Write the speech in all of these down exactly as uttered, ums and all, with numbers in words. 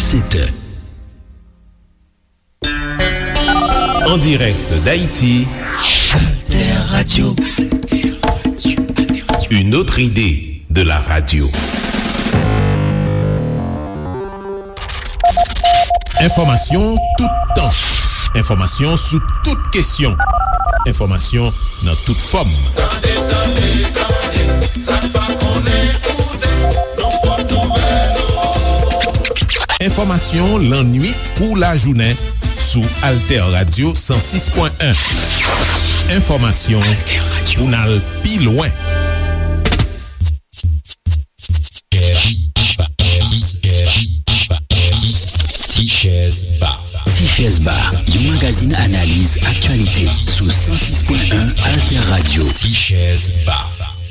sept heures. En direct d'Haïti, Alter Radio. Une autre idée de la radio. Enfòmasyon toutan. Enfòmasyon sou tout kesyon. Enfòmasyon nan tout fòm. Tande, tande, tande, sa n pa konnen koute, nou pot nouvèl. Enfòmasyon lannwit kou lajounen sou Alter Radio san sis pwen en. Enfòmasyon pou n al pi lwen. Tichèz Ba. Tichèz Ba, yon magazin analiz aktyalite sou san sis pwen en Alter Radio. Tichèz Ba.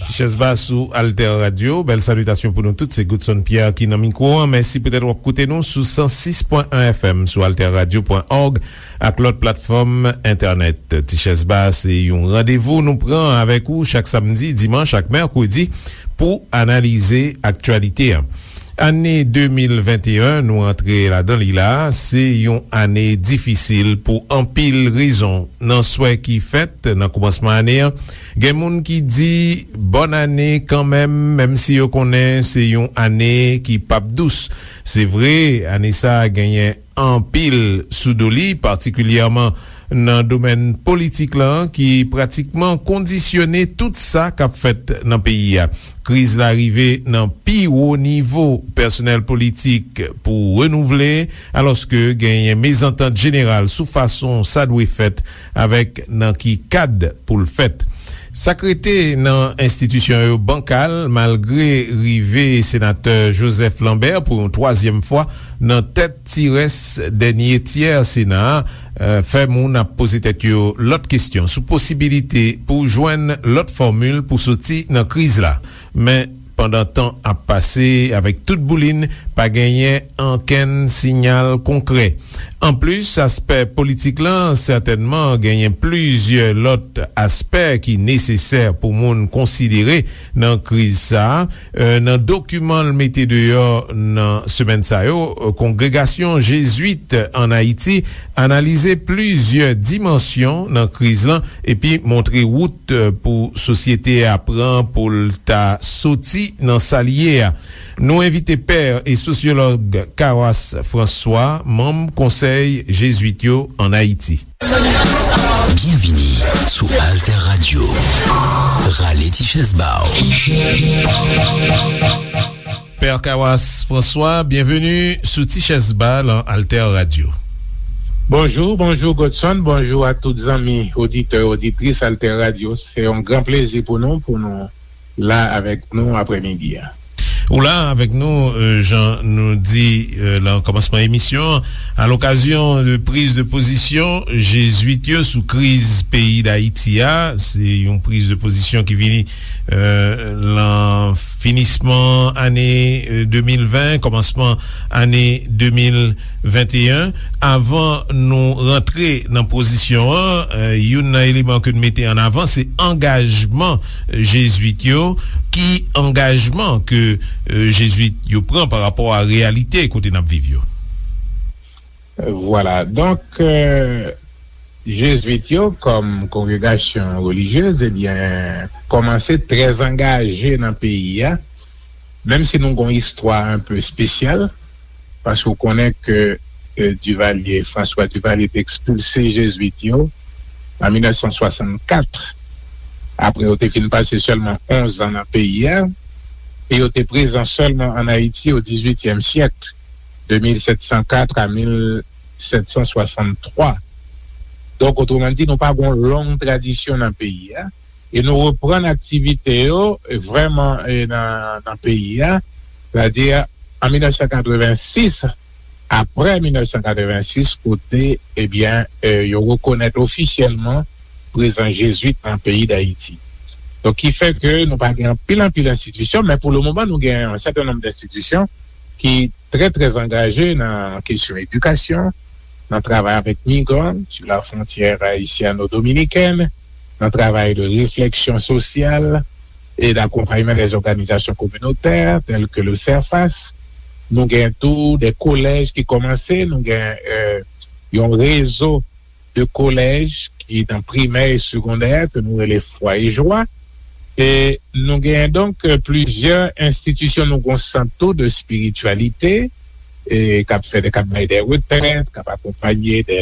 Tichèz Ba sou Alter Radio. Bèl salitasyon pou nou tout. Se Goodson Pierre ki nan mikwo an. Mèsi poutèt w ap koute nou sou san sis pwen en F M, sou alter radio pwen org ak lòt platfòm entènèt. Tichèz Ba se yon randevou nou pran avèk ou chak samdi, dimanch ak mèkredi pou analize aktyalite an. Ane de mil venteyen, nou antre ladan li la, se yon ane difisil pou anpil rezon. Nan swè ki fèt nan kòmansman ane an, gen moun ki di bòn ane kanmenm, menm si yo konnen se yon ane ki p ap dous. Se vre, ane sa a genyen anpil sou do li, patikilyèman nan domèn politik la, ki pratikman kondisyone tout sa k ap fèt nan peyi a. Kriz la rive nan pi wo nivo pèsonèl politik pou renouvle, alòske genyen mezantant jeneral sou fason sa dwe fèt avèk nan ki kad pou l fèt. Sa k rete nan enstitisyon yo bankal, malgre rive senatè Joseph Lambert pou yon twazyèm fwa nan tèt ti rès dènye tyè Sena a, eh, fè moun ap poze tèt yo lòt kesyon sou posibilite pou jwenn lòt fòmil pou soti nan kriz la. Men, pandan tan ap pase, avèk tout boulin, pa genyen ankenn siyal konkrè. Anplis, aspè politik lan, sètènman, genyen plizyè lòt aspè ki nesesè pou moun konsidere nan kriz sa a. Eh, nan dokiman l mete deyò nan semèn sa yo, eh, Kongregasyon Jezwit ann Ayiti analize plizyè dimansyon nan kriz lan epi montre wout, eh, pou sosyete a pran pou l ta soti nan sa l ye a. Nou envite pè e sosyològ Kawas François, manm Konsèy Jezwit yo ann Ayiti. Byenvini sou Alter Radio. Rale ti chèz ba w. Pè Kawas François, byenveni sou Ti Chèz Ba lan Alter Radio. Bonjou, bonjou Godson, bonjou a tout zanmi oditè, oditris Alter Radio. Se yon gran plezi pou nou, pou nou la avèk nou aprèmidi a. Ou la avèk nou, euh, jan nou di, euh, lan kòmansman emisyon an, a lokazyon de priz de pozisyon Jezwit yo sou kriz peyi Dayiti a. Se yon priz de pozisyon ki vini, euh, lan finisman ane, euh, de mil ven, kòmansman ane de mil venteyen. Avan nou rantre nan pozisyon an, eh, youn nan eleman ke n mete an avan, se angajman Jezwit yo. Ki angajman ke, eh, Jezwit yo pran pa rapò a reyalite kote n ap viv yo? Vwala. Donk, eh, Jezwit yo, kòm kongregasyon relijyez, ebyen, kòmanse trè angaje nan peyi a, menm si nou gon istwa enpe espesyal, paske w konnen ke, eh, Duvalier, François Duvalier te ekspilse Jezwit yo an mil nèf san swasannkat, apre yo te fin pase sèlman onz an nan peyi a, e yo te prezan sèlman ann Ayiti o dizuityèm syèk, de mil sèt san kat a mil sèt san swasanntwa. Donk, otreman di, nou pa gon long tradisyon nan peyi a, e nou reprann aktivite yo, e vrèman, e nan, nan peyi a, sètadi an mil nèf san katrevensis, apre mil nèf san katrevensis, kote, ebyen, e, yo rekonèt ofisyèlman prezans Jezwit nan peyi Dayiti. Donk, ki fè ke nou pa gen anpil, anpil enstitisyon, men pou le moman, nou gen yon sèten nonb enstitisyon ki trè, trè angaje nan kesyon edikasyon, nan travay avèk migran sou la fwontyè ayisyano-dominikèn, nan travay de refleksyon sosyal e d'akonpayman dè òganizasyon kominotè, tèl ke le CERFAS. Nou gen tou de kolèj ki kòmanse, nou gen, e, yon rezo de kolèj ki nan primè e segondè ke nou rele Fwa e Jwa. E nou genyen donk, e, plizyè enstitisyon, nou gen yon sant tou de espirityalite, e k ap fè de, k ap bay de retrèt, k ap akonpaye de,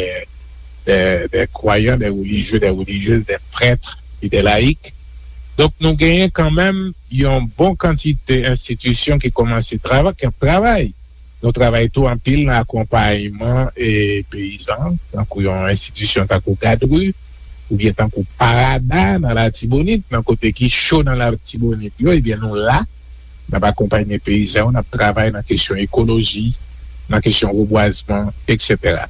de, de kwayan, de relijye, de relijyez, de prèt e de layik. Donk, nou genyen kanmenm yon bon kantite enstitisyon ki kòmanse travay, ki ap travay. Nou travay tou anpil nan akonpayman, e, peyizan, tankou yon enstitisyon tankou Gadri, oubyen tankou Parada nan Latibonit, nan kote ki cho nan Latibonit yo, ebyen nou la, n ap akonpanye peyizan yo, n ap travay nan kesyon ekoloji, nan kesyon rebwazman, etsetera.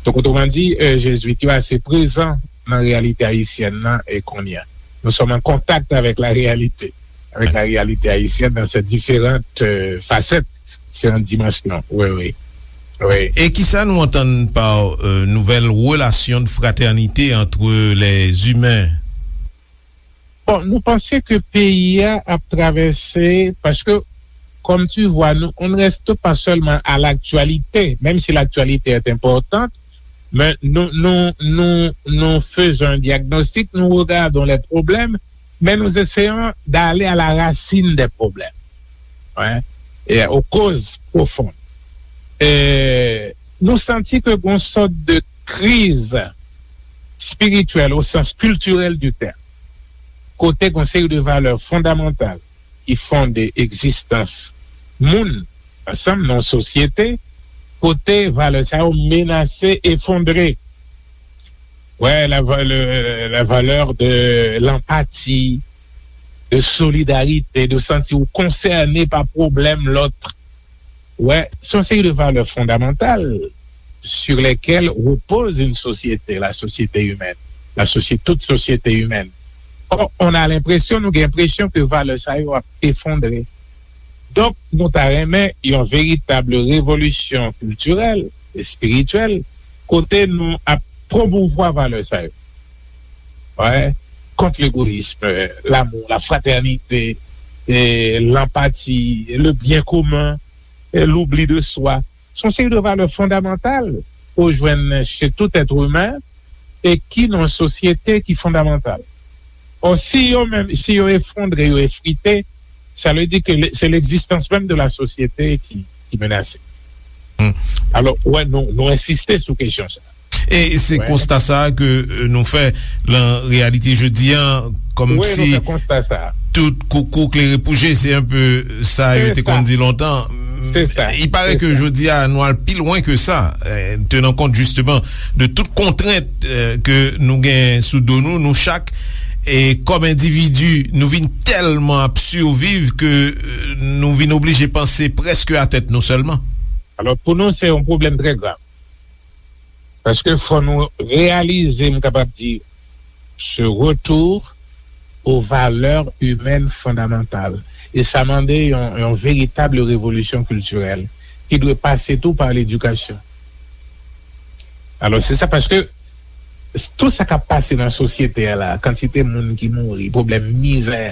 Donk, otreman di, e, Jezwit yo ase prezan nan reyalite ayisyèn nan, e kounye a. Nous sommes en contact avec la réalité, avec la réalité haïtienne dans ses différentes, euh, facettes, différentes dimensions. Oui, oui. Oui. E kisa nou antann pa, euh, nouvèl relasyon de fraternité entre les humains? Bon, nou panse ke peyi a ap travèse, paske, comme tu vois, nous, on ne reste pas seulement à l'actualité, même si l'actualité est importante, mais nous, nous, nous, nous faisons un diagnostic, nous regardons les problèmes, mais nous essayons d'aller à la racine des problèmes, hein, et aux causes profondes. E nou santi ke gon sòt de kriz espirityèl o sans kiltirèl di tèm, kote gon seri de valè fondamantal ki fonde egzistans moun ansanm nan sosyete, kote valè sa yo menase efondre. Ouais, la, va- le- la valeur de l'empathie, de solidarité, de sentir ou concerné par problème l'autre. Ouais, c'est une série de valeurs fondamentales sur lesquelles repose une société, la société humaine, la société, toute société humaine. Or, on a l'impression, nou gen enpresyon ke valè sa yo ap efondre. Donk, nou ta renmen yon veritab revolisyon kiltirèl, espirityèl, kote nou ap pwomouvwa valè sa yo. Ouais. Contre l'égoïsme, l'amour, la fraternité, et l'empathie, le bien commun, et l'oubli de soi. Se yon seri de valè fondamantal ou jwenn chez tout être humain e ki nan sosyete ki fondamantal. Or, si yo menm, si yo efondre, yo efrite, sa vle di ke le- c'est l'existence même de la société qui, qui menacée. Hmm. Alors, ouais, nou, nou ensiste sou kesyon sa. E se konsta sa a ke, euh, nou fè lan reyalite jodi a, kòmsi tout koukou klere pou je, se enpe sa yo te konn di lontan. Il paraît que jodi a, nou al pi lwen ke sa, euh, tenan kont jisteman de tout kontrent, euh, ke nou gen sou do nou, nou chak, e kòm endividi, nou vin tèlman ap siviv ke, euh, nou vin oblije panse prèske a tèt nou sèlman. Alors, pour nous, c'est un problème très grave. Paske fò nou reyalize, m kapab di, ce retour aux valeurs humaines fondamentales. E sa mande yon, yon veritab revolisyon kiltirèl ki dwe pase tou pa ledikasyon. Alò, se sa, paske tout sa k ap pase nan sosyete a la, kantite moun ki mouri, pwoblèm mizè,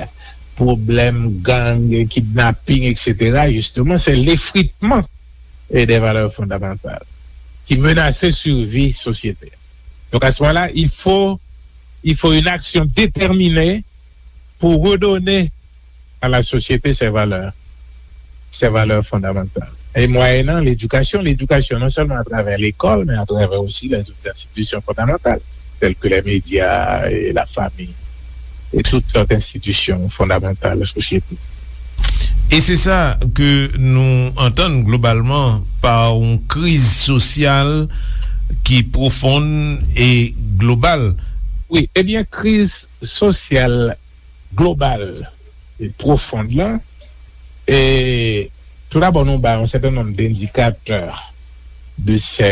pwoblèm gang, kidnaping, etsetera, jisteman, se lefritman e de valè fondamantal ki menase sivi sosyete. Donc, à ce moment-là, il faut, il faut une action déterminée pour redonner à la société ses valeurs, ses valeurs fondamentales. Et moyennant l'éducation, l'éducation non seulement à travers l'école, mais à travers aussi les autres institutions fondamentales, telles que les médias et la famille. E tout sòt enstitisyon fondamantal sosyete. E se sa ke nou antann globalman pa yon kriz sosyal ki pwofon e global. Wi, ebyen, kriz sosyal global e pwofon lan, e tou dabò, nou ba yon sèten nonb dendikatè de, se,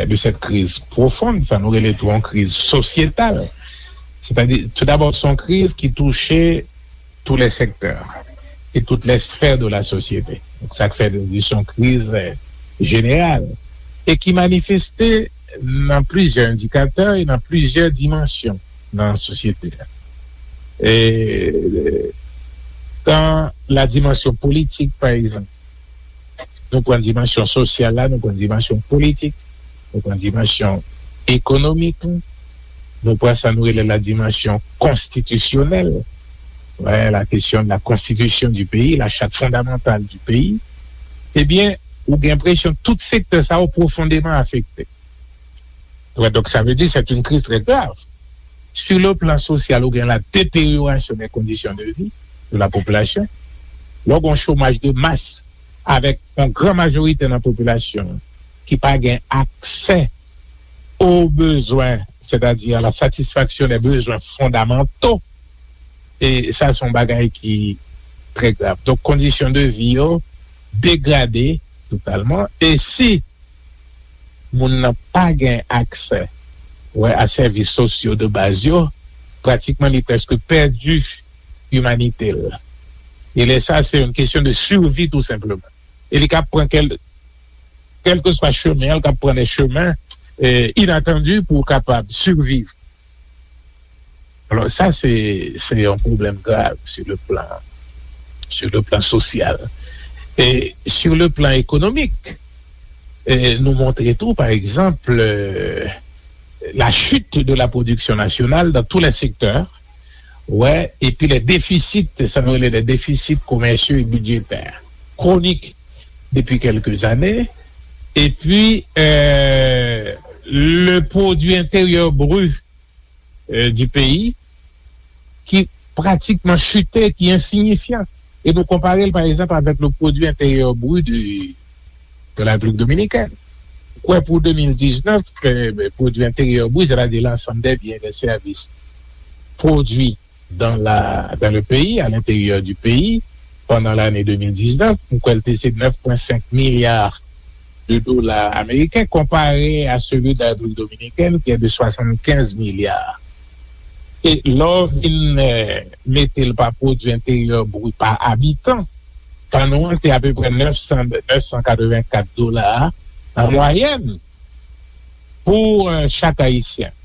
de cette crise profonde, sa nou rele tou yon kriz sosyetal. Sètadi, tou dabò, se yon kriz ki touche tous les secteurs et toutes les sphères de la société. Donk, sa k fè nou di se yon kriz, euh, jeneral e ki manifeste nan plizyè endikatè e nan plizyè dimansyon nan sosyete a. E, euh, dans la dimension politique, par exemple, Nou pran dimansyon sosyal la, nou pran dimansyon politik, nou pran dimansyon ekonomik, nou pran sa nou rele la dimansyon konstitisyonèl, ouais, la question de la constitution du pays, la charte fondamentale du pays, ebyen, ou gen enpresyon tout sektè sa yo pwofondeman afekte. Ouais, donc ça veut dire c'est une crise très grave. Sur le plan social, ou gen la détérioration des conditions de vie de la population. Lè w gen yon chomaj de mas avèk yon gran majorite nan popilasyon ki pa gen aksè aux besoins, c'est-à-dire à la satisfaction des besoins fondamentaux, e sa se yon bagay ki trè grav. Donk, kondisyon de vi yo degrade totalman. E si moun nan pa gen aksè, wè, a sèvis sosyo de baz yo, pratikman li prèske pèdi imanite l. E lè sa, se yon kesyon de survie tou senpleman. E li ka pran kèl, kèlkeswa chemen, li ka pran de chemen eh, inatandi pou kapab surviv. Alò, sa, se, se yon pwoblèm grav sur le plan, sur le plan social. E sur le plan économique, eh, nou montre tou, pa egzanp, eh, la chute de la production nationale dans tous les secteurs, ouais, et puis les déficits, ça nous les déficits commerciaux et budgétaires chroniques depuis quelques années, et puis euh, le produit intérieur brut euh, du pays qui pratiquement chuté, qui est insignifiant. Et nous comparons par exemple avec le produit intérieur brut du, de la République dominicaine. Quoi, pour deux mille dix-neuf, euh, le produit intérieur brut, c'est-à-dire l'ensemble des biens et des services produits dans, la, dans le pays, à l'intérieur du pays, pendant l'année deux mille dix-neuf, nou kwè l te se neuf point cinq milliards de dollars américains, comparé à celui de la République dominicaine, qui est de soixante-quinze milliards. E lè w vin eh, mete l pa pwodui enteryè bri pa abitan, pa nou an te apeprè neuf cents, neuf cent quatre-vingt-quatre dola an mwayèn pou eh, chak Ayisyen.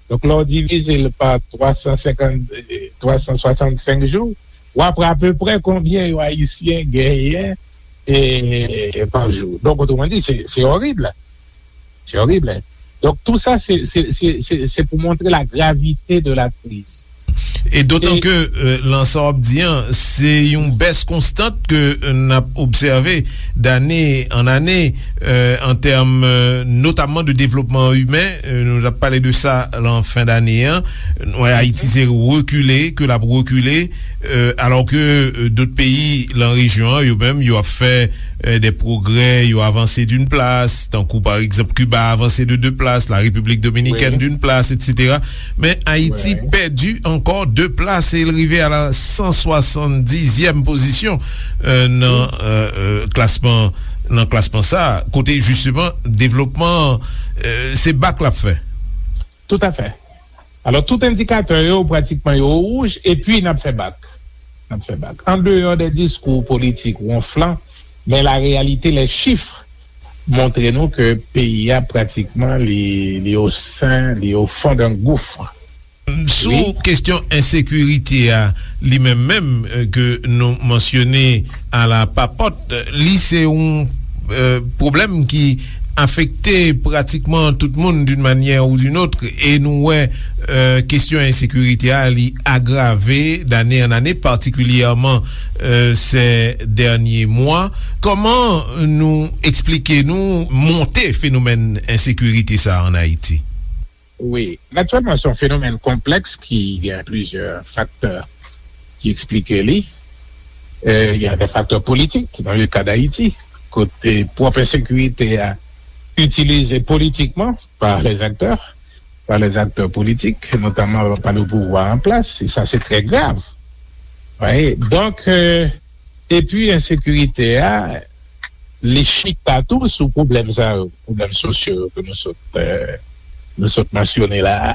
Donk, lè w divize l pa twa san senkant, twa san swasannsenk jou, w ap wè apeprè konbyen yo Ayisyen genyen e, pa jou. Donk, otreman di, se, se orib. Se orib. Donk, tou sa, se, se, se, se, se pou montre la gravite de la kriz. E dotan ke euh, lan sa w ap di an, se yon bès konstant ke euh, n ap obsève dane an ane euh, an tèm euh, notamman de devlopman imen. Euh, nou t ap pale de sa lan fen dane an. Nou wè Ayiti se rekile ke l ap rekile, euh, alò ke euh, dòt peyi lan rejyon an, yo menm, yo ap fè euh, des progrès, yo avanse d'une place, tankou pa egzanp Kiba avanse de deux places, la République dominicaine d'une place, et cetera. Men Ayiti pèdi ankò de plas e l rive a la san swasanndizyèm pozisyon euh, nan euh, euh, klasman nan klasman sa, kote jisteman devlopman euh, se bak l ap fè. Toutafè. Alò, tout endikatè yo, pratikman, yo wouj, epi n ap fè bak. N ap fè bak. An deyò de diskou politik wonflan, men la réalité, les chiffres montre nou ke peyi a, pratikman, li, li au sein, li au fond d'un gouffre. Sou kesyon ensekirite a, li menm menm, euh, ke nou mansyone a la papòt, li se yon euh, pwoblèm ki afekte pratikman tout moun d'une manière ou d'une autre, e nou wè euh, kesyon ensekirite a li agrave dane an ane, patikilyèman euh, ces derniers mois. Kòman nou eksplike nou monte fenomèn ensekirite sa a an Ayiti? Wi, naturellement, c'est un phénomène complexe qui a plusieurs facteurs qui expliquent li. Euh, il y a des facteurs politiques dans le cas d'Haïti, kote pwòp ensekirite a itilize politikman par les acteurs, par les acteurs politiques, notamment par le pouvoir en place, et ça c'est très grave. Vous voyez? Donc, euh, epi ensekirite a, li chita tou sou pwoblèm sa yo, pwoblèm sosyo yo ke nou sot, euh, nou sot mansyone la a.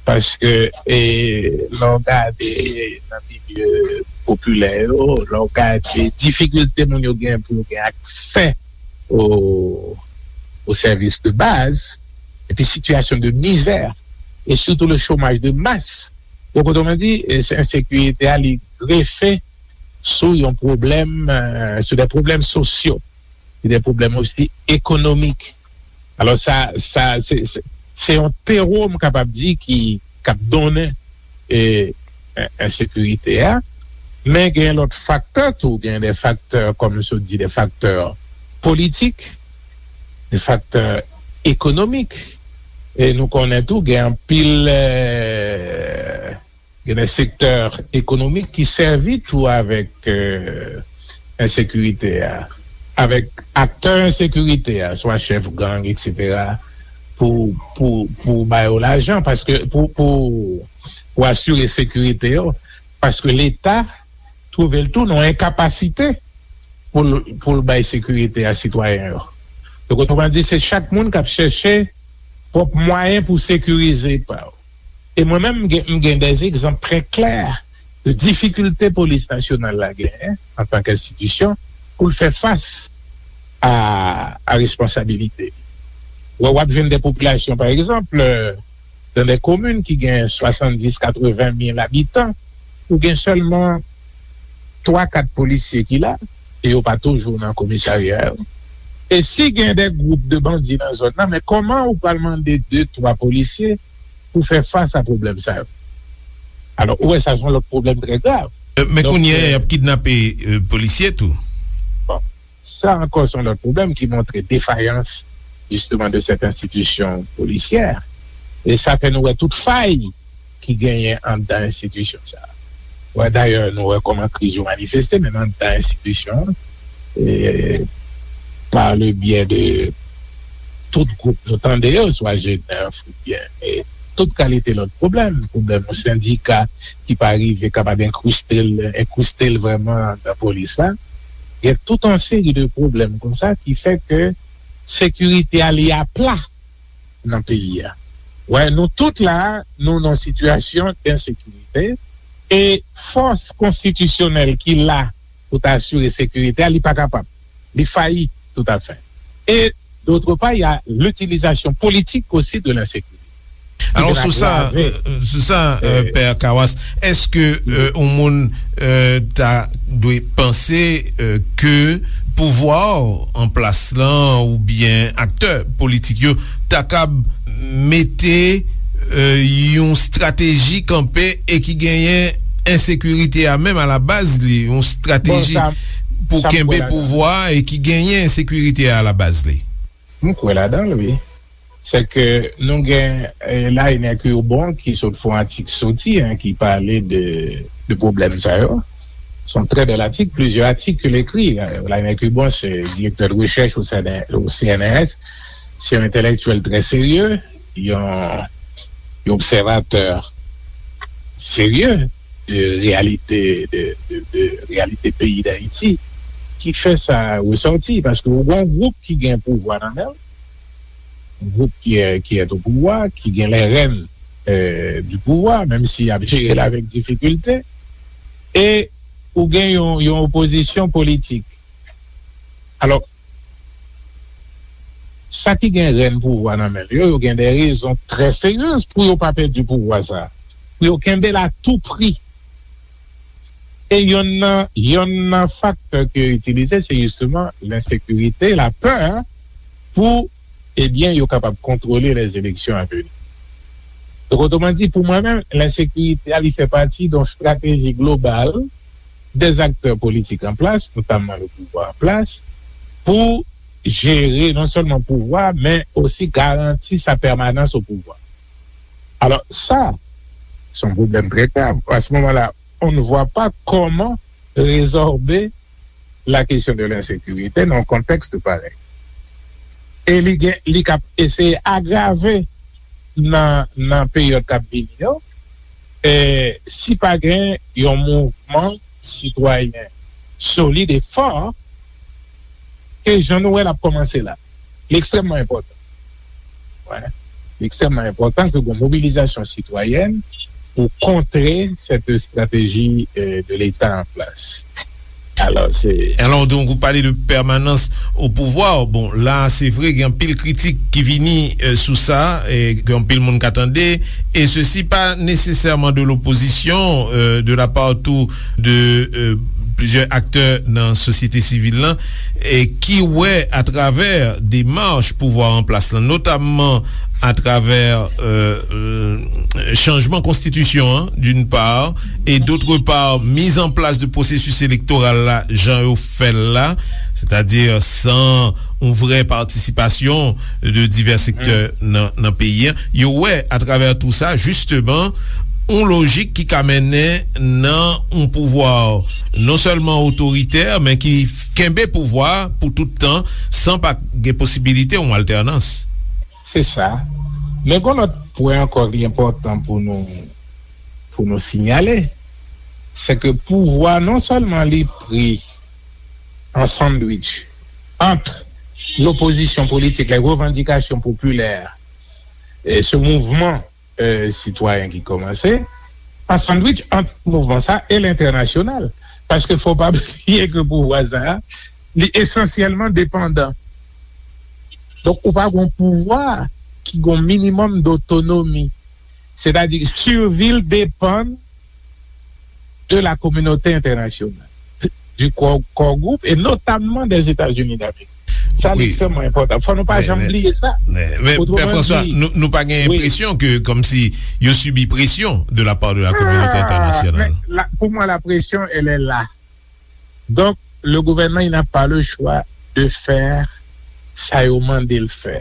Paske e, lè w gade nan milye popilè yo, lè w gade difikilte moun yo gen pou yo gen aksè o, o sèvis de baz, epi sitiyasyon de mizè, e sitou le chômage de masse. Donk, otreman di, e, se ensekirite a, li grefe sou yon pwoblèm, euh, sou de pwoblèm sosyo. gen de pwoblèm osi ekonomik. Alò, sa, sa, se, se, se yon tewo, m kapab di, ki, k ap donnen, e, en-, ensekirite a. Men gen lòt faktè tou, gen de faktè, kòm m sot di, de faktè politik, de faktè ekonomik. E nou konnen tou, gen anpil, e, gen de sektè ekonomik ki sèvi tou avèk, e, ensekirite a, avèk aktè ensekirite a, swa chèf gang, etsetera, pou, pou, pou ba yo lajan, paske pou, pou, pou asire sekirite yo, paske Leta twouve l tou nan enkapasite pou l, pou l bay sekirite a sitwayen yo. Donk, otreman di, se chak moun k ap chèche pwòp mwayen pou sekirize pa yo. E mwen menm, m gen, m gen de egzanp trè klè de difikilte polis nasyonal la genyen antanke enstitisyon pou l fè fas a, a responsabilite li. Wè, w ap jwenn de popilasyon, pa egzanp, nan de komin ki gen swasanndis, katreven mil abitan, ou gen sèlman twa, kat polisye ki la, e yo pa toujou nan komisarya yo. E si gen de gwoup de bandi nan zòn nan, men kòman ou pral mande de, twa polisye pou fè fas a pwoblèm sa yo? Alò, ou wè, sa se yon lòt pwoblèm trè grav. E, men Donk, kounye a, e, y ap kidnape, e, polisye tou. Bon, sa ankò se yon lòt pwoblèm ki montre defayans, jisteman, de sèt enstitisyon polisyè. E sa fè nou wè tout fay ki genyen anndan enstitisyon sa a. Wè, dayè, nou wè kòman kriz yo manifeste, menm anndan enstitisyon an, e, pa le byè de tout gwoup nou tande yo, swa G nèf oubyen, e, tout kalite lòt pwoblèm, pwoblèm yon sendika ki pa rive kapab enkriste l, enkriste l vrèman anndan polis la. Gen tout yon seri de pwoblèm konsa ki fè ke sekirite a li apla nan peyi a. Wè, nou tout la, nou nan sitiyasyon d ensekirite, e fòs konstitisyonèl ki la pou ta asire sekirite a, li pa kapab. Li fayi toutafè. E, d'autre part, il y a l'utilisation politique aussi de l'insécurité. Alò, sou sa, sou sa, e, Pè Kawas, èske, e, yon moun, e, ta dwe panse, e, ke pouvwa an plas lan oubyen aktè politik yo ta kab mete, e, yon estrateji kanpe e ki genyen ensekirite a menm a la baz li, yon estrateji pou kenbe pouvwa e ki genyen ensekirite a la baz li? M kwè ladan l, wi. Se ke nou gen, e, Laine Curbon ki sot fè yon atik soti, en, ki pale de, de pwoblèm sa yo. Se yon trè bèl atik, plizyè atik ke l ekri. Laine Curbon se direktè de rechèch o C N R S, se yon entèlektyèl trè serye, yon, yon obsèvatè serye de reyalite, de, de, de reyalite peyi Dayiti, ki fè sa resòti, paske ou gen yon gwoup ki gen pouvwa nan men l, gwoup ki, ki est au pouvoir, ki gen les rênes, euh, du pouvoir, menm si y ap jere l avèk difikilte, e ou gen yon, yon opozisyon politik. Alò, sa ki gen rèn pouvwa nan men l yo, yo gen de rezon trè serye pou yo pa pèdi pouvwa sa a, pou yo kenbe l a tou pri. E yonn nan, yonn nan faktè ke yo itilize, se jisteman lensekirite, lapè, pou, ebyen, yo kapab kontwole lèzeleksyon a veni. Donk, otreman di, pou mwen menm, lensekirite a, li fè pati de yon estrateji global dè aktè politik an plas, notamman le pouvwa an plas, pou jere non sèlman pouvwa, men osi garanti sa pèmanans o pouvwa. Alò, sa, se yon pwoblèm trè grav. À ce moment-là, on ne voit pas comment résorber la question de l'insécurité nan yon kontèks parèy. E li gen, li k ap eseye agrave nan, nan peryòd k ap vini yo, e si pa gen yon mouvman sitwayen solid e fò, ke jan nou wè l ap kòmanse la. Li ekstrèmman enpòtan. Wè. Li ekstrèmman enpòtan ke gen mobilizasyon sitwayèn pou kontre cette stratégie, euh, de l'État en place. Alò, se... Alò, donk, ou pale de pèmanans o pouvwa. Bon, la, se vre, gen anpil kritik ki vini, euh, sou sa, e gen anpil moun ka tande, e sesi pa nesesèman de lopozisyon, euh, de la part tou de, euh, plizyè aktè nan sosyete sivil lan, e ki wè atravè demach pouvwa an plas lan, notamman atravè, euh, euh, chanjman konstitisyon an, d'une part, et d'autre part, mise en place de processus électoral la, jan yo fè l la, sètadi san yon vrè patisipasyon de divè sektè nan, nan peyi an. Yo wè atravè tou sa, jisteman, yon lojik ki ka mennen nan yon pouvwa non sèlman otoritè, men ki kenbe pouvwa pou tout tan, san pa gen posibilite yon altènans. Se sa. Men gon lòt pwen ankò ki enpòtan pou nou, pou nou siyale, se ke pouvwa non sèlman li pri an sandwich ant lopozisyon politik, les revendications populaires, e se mouvman, e, sitwayen ki kòmanse, an sandwich ant mouvman sa e lentènasyonal. Paske fò pa bliye ke pouvwa sa a, li esansyèlman depandan. Donk, ou pa gon pouvwa ki gon minimòm dotonomi. Sètadi, survi l depann de la communauté internationale, du Core, Core Group, et notamment des États-Unis d'Amérique. Sa, wi, ekstrèmman enpòtan. Fò nou pa janm bliye sa. Men, men, men, Pè François, nou, nou pa gen enpresyon ke, kòmsi, yo sibi presyon de la part de la communauté internationale? Ah, men, la, pour moi, la pression, elle est là. Donk, le gouvènman, il n'a pas le choix de faire sa yo mande l fè.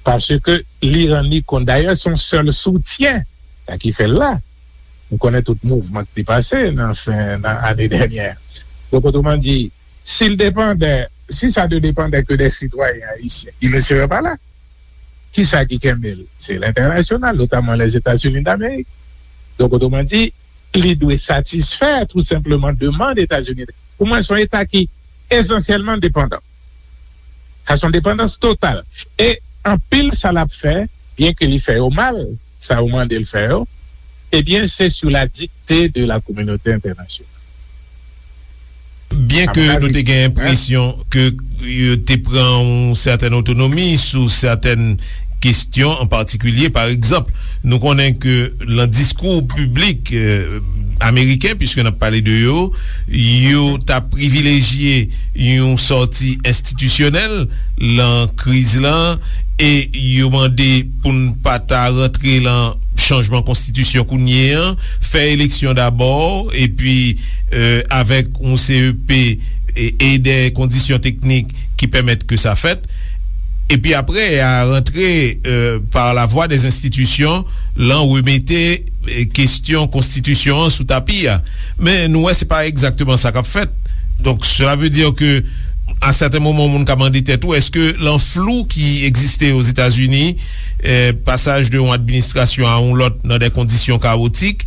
Paske li rann li kont. Dayè, se yon sèl soutyen, sa ki fè l la. Nou konnen tout mouvman ki te pase nan fen, nan ane dènyè. Donk, otreman di, si l depandè, si ça ne dépendait que des citoyens haïtiens, il ne serait pas là. Kisa ki kenbe l? Se lentènasyonal, notamman Lèzetazini Damerik. Donk, otreman di, li dwe satisfè tou senpleman demann Etazini. Pou mwen, se yon Eta ki esansyèlman depandan. Sa se yon depandans total. E anpil sa l ap fè, byen ke li fè yo mal, sa yo mande l fè yo, ebyen, se sou la dikte de la kominote entènasyonal. Byen ke nou te gen enpresyon ke yo te pran yon sètèn otonomi sou sètèn kesyon an patikilye. Pa egzanp, nou konnen ke nan diskou piblik, eh, ameriken, piske n ap pale de yo, yo ta privilejye yon sòti enstitisyonèl lan kriz lan, e yo mande pou n pa ta rantre lan chanjman konstitisyon kounye an, fè eleksyon dabò, epi, eh, avèk yon C E P e, e dè kondisyon teknik ki pèmèt ke sa fèt. Epi apre, a rantre, eh, par la voie des institutions, lan remete, eh, kesyon konstitisyon an sou tapi a. Men nou wè se pa egzakteman sa k ap fèt. Donk, cela veut dire que, à certains moments, moun ka mande tèt ou, èske lan flou ki egziste Ozetazini, eh, pasaj de yon administrasyon a yon lòt nan de kondisyon kawotik,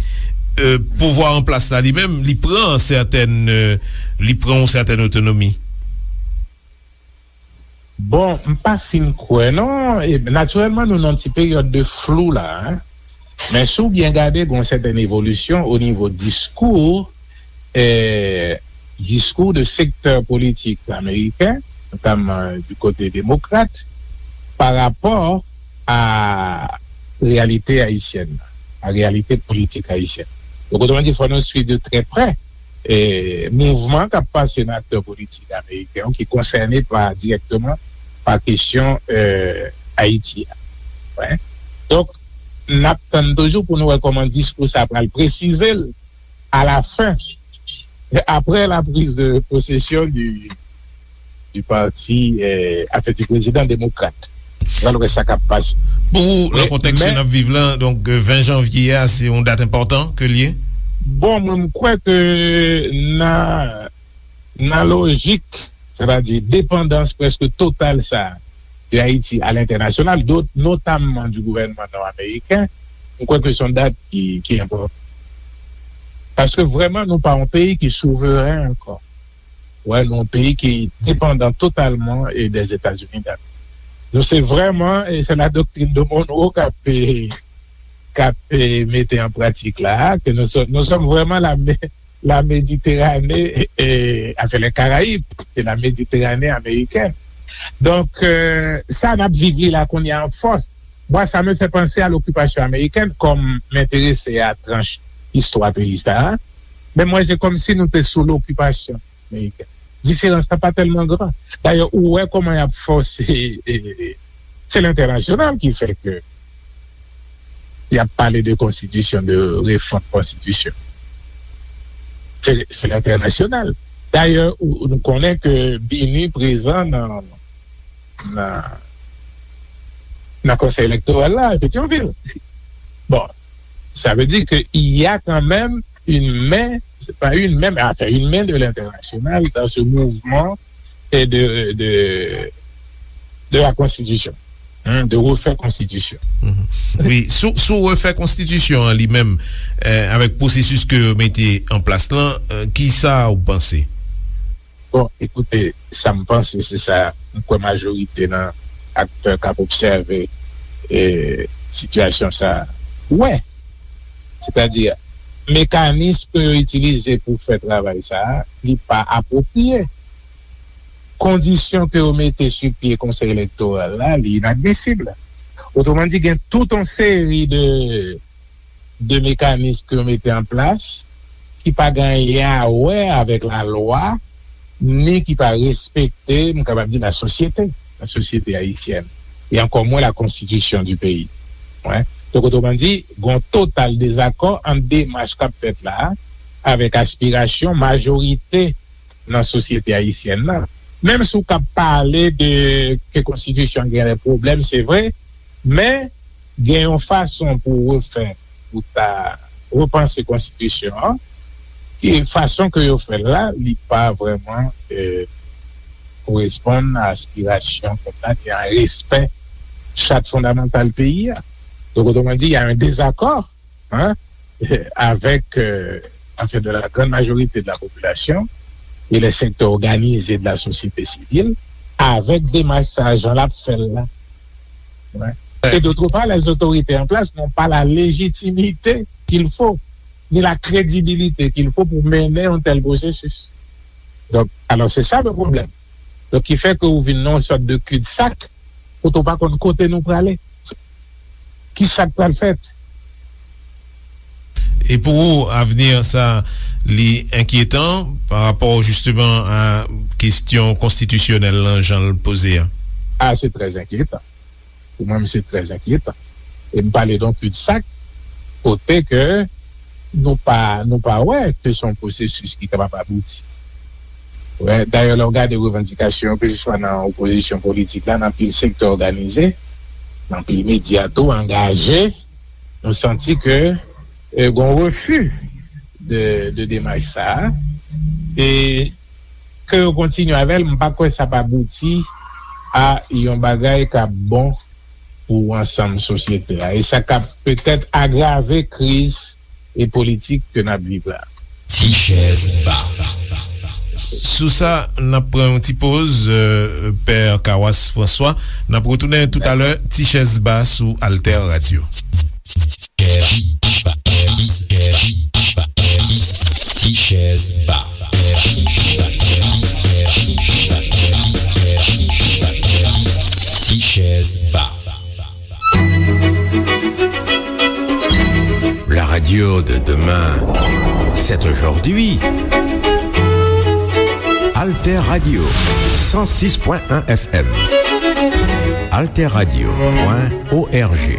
eh, pouvwa an plas la li menm, li pran sètèn, eh, li pran yon sètèn otonomi? Bon, m pa fin kwè non. E, natirèlman, nou nan ti peryòd de flou la, en. Men si w byen gade, gen yon sètèn evolisyon o nivo diskou, eh, diskou de sektè politik ameriken, notamman du kote demokrat, pa rapò a reyalite ayisyèn, a reyalite politik ayisyèn. Donk, otreman di, fò nou swiv de trè prè, eh, mouvman k ap pase nan aktè politik ameriken yo ki konsène pa, dirèkteman pa kesyon, eh, Ayiti a. Wi. Donk, n ap tann toujou pou nou wè kòman diskou sa pral presize l a la fen, apre la prise de possession du, du parti, eh, anfen, du prezidan demokrat. Pral wè sa k ap pase. Pou ou, nan kontèks ke n ap viv lan, donk, eh, ven janvye a, se yon dat enpòtan ke l ye? Bon, mwen, m kwè ke nan, nan lojik, sètadi depandans prèske total sa de Ayiti a lentènasyonal, do-, notamman du gouvènman nò-ameriken, m kwè ke se yon dat ki, ki enpòtan. Paske vrèman, nou pa yon peyi ki souveren ankò. Wè, nou yon peyi ki depandan totalman, e, dèzetazini. Nou se vrèman, e se la doktrin de Monroe k ap, e, k ap, e, mete an pratik la, ke nou sòm, nou sòm vrèman la, la Méditerranée, e, anfen, les Caraïbes, c'est la Méditerranée américaine. Donk, e, sa n ap viv li la kounye a an fòs. Mwen, sa me fè panse a lokipasyon amerikèn, kòm m enterese a tranch istwa peyi sa a. Men mwen, se kòmsi nou te sou lokipasyon amerikèn. Diferans la pa tèlman gran. Dayè, ou wè kòman y ap fòse, e, e, se lentènasyonal ki fè ke y ap pale de konstitisyon, de refòm konstitisyon. Se, se lentènasyonal. Dayè, ou, nou konnen ke BINUH prezan nan, nan, nan Konsèy Elektoral la, Petyonvil. Bon, ça veut dire que il y a quand même une main, c'est pas une main, mais enfin une main de l'international dans ce mouvement et de, de, de la Constitution, hein, de refaire Constitution. Mhm. Wi, sou, sou refè konstitisyon an li menm, eh, avèk pwosesis ke yo mete an plas lan, eh, ki sa ou panse? Bon, ekoute, sa m panse, se sa m kwè majorite nan aktè k ap obsève, e, sitiyasyon sa a wè. Sètadi, mekanis ke yo itilize pou fè travay sa a, li pa apwopriye. Kondisyon ke yo mete sou pye Konsèy Elektoral la, li inadmisib. Otreman di, gen tout yon seri de de mekanis ke yo mete an plas ki pa gen anyen a wè avèk lalwa, ni ki pa respekte, m kapab di, lasosyete, lasosyete ayisyèn, e ankò mwen la constitution du pays. Wè. Donk, otreman di, gen yon total dezakò ant demach k ap fèt la a avèk aspirasyon majorite nan sosyete ayisyèn nan. Menm si w ka pale de ke konstitisyon an gen de pwoblèm, se vre, men gen yon fason pou refè, pou ta repanse konstitisyon an, ki fason ke yo fè l la, li pa vrèman, eh, koresponn a aspirasyon pèp la, ni a respè chat fondamantal peyi a. Donk, otreman di, y a un désaccord, hein, avec, euh, enfin, de la grande majorité de la population et les secteurs organisés de la société civile, avec démarche sa a, jan l ap fè l la. Ouais. Et d'autre part, les autorités en place n'ont pas la légitimité qu'il faut, ni la crédibilité qu'il faut pour mener un tel processus. Donc, alors, c'est ça le problème. Donk, ki fè ke ou vin nan yon sòt de cul-de-sac, kote w pa konn kote nou prale. Ki sa k pral fèt? E pou ou, avni sa, li enkyetan pa rapò jisteman a kesyon konstitisyonèl lan, jan l poze a? Ah, c'est très inquiétant. Pou mwen, se trè enkyetan. E m pale de yon cul-de-sac, kote ke nou pa, nou pa wè ke se yon pwosesis ki kapab abouti. Wè, dayè, lè w gade revandikasyon, keseswa nan opozisyon politik la, nan anpil sektè òganize, nan anpil medya tou angaje, nou santi ke, eh, gen yon refi de, de demach sa a. E ke yo kontinye avè l, m pa kwè sa p abouti a yon bagay k ap bon pou ansanm sosyete a. E sa k ap petèt agrave kriz e politik ke n ap viv la. Ti chèz ba. Sou sa, n ap pran yon ti poz, euh, Pè Kawas Franswa. N ap retounen toutalè, Ti chèz ba sou Alter Radio. Ti chèz ba. Ti chèz ba. La radio de demain, c'est aujourd'hui. Alter Radio, cent six point un F M. Alter Radio point O R G.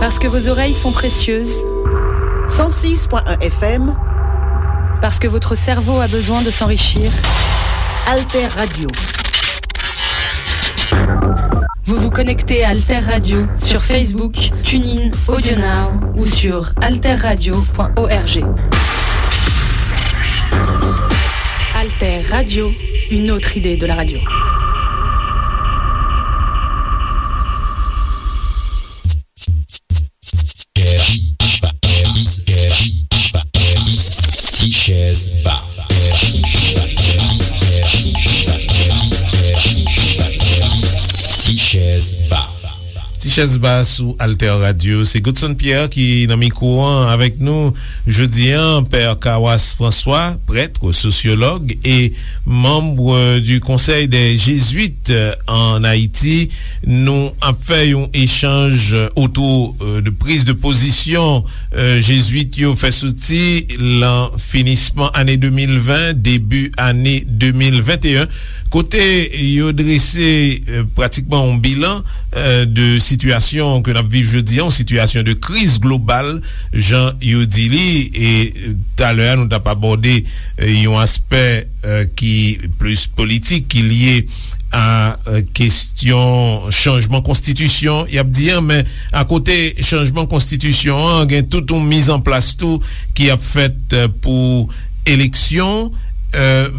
Parce que vos oreilles sont précieuses. Cent six point un F M. Parce que votre cerveau a besoin de s'enrichir. Alter Radio. Vous vous connectez à Alter Radio sur Facebook, TuneIn, AudioNow ou sur alterradio point org. Alter Radio, une autre idée de la radio. Ti chèz ba. Ti chèz ba. Ti chèz ba sou Alter Radio. Se Godson Pierre ki nan mikwo an avèk nou jodi an. Pè Kawas François, prêtre, sosyològ e membre du Conseil des Jésuites en Haïti. Nou ap fè yon echanj otou, euh, de priz de pozisyon, euh, Jezwit yo fè soti lan finisman ane de mil ven, debi ane de mil venteyen, kote yo drese, euh, pratikman yon bilan, euh, de sitiyasyon ke n ap viv jodi an, yon sitiyasyon de kriz global, jan yo di li, e, euh, talè a, nou t ap abòde, euh, yon aspè, euh, ki plis politik, ki lye a, euh, kesyon chanjman konstitisyon, y ap di an, men akote chanjman konstitisyon an, gen tout yon mizanplas tou ki ap fèt, euh, pou eleksyon. Euh,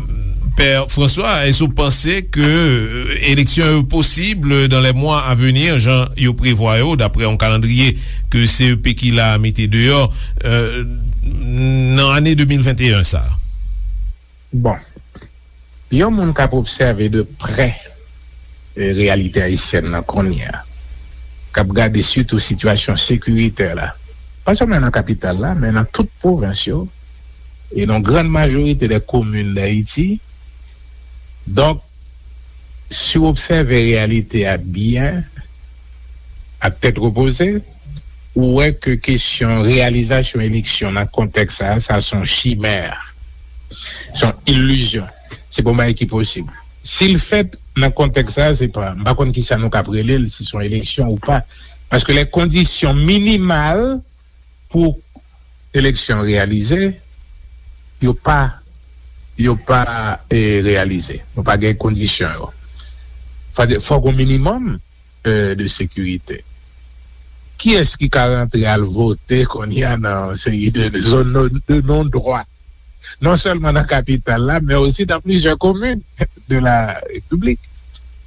Pè François, èske w panse ke, euh, eleksyon yo posib dans les mois à venir, jan yo prevwa yo, daprè yon kalandriye ke C E P ki la mete deyò, euh, nan ane de mil venteyen sa? Bon, yon moun k ap obsève de prè, e, reyalite ayisyèn nan kounye a, k ap gade sitou sitiyasyon sekiritè la, pa sèlman nan kapital la, men nan tout pwovens yo, e nan grann majorite dè komin d Ayiti. Donk, si w obsève reyalite a byen, ak tèt repoze, ou wè ke kesyon reyalizasyon eleksyon nan kontèks sa a, sa se yon chimè, se yon ilizyon. Se pa yon bagay ki posib. Si l fèt nan kontèks sa a, se pa, m pa konn kisa nou kab rele l, si se yon eleksyon ou pa. Paske les conditions minimales pou eleksyon reyalize, yo pa, yo pa, e, reyalize. Nou pa gen kondisyon yo. Fò, fò gen yon minimòm, e, de sekirite. Kiyès ki ka rantre al vote kounye a nan yon seri de zòn de, de non dwa? Non sèlman nan kapital la, men osi nan plizyè komin de la repiblik,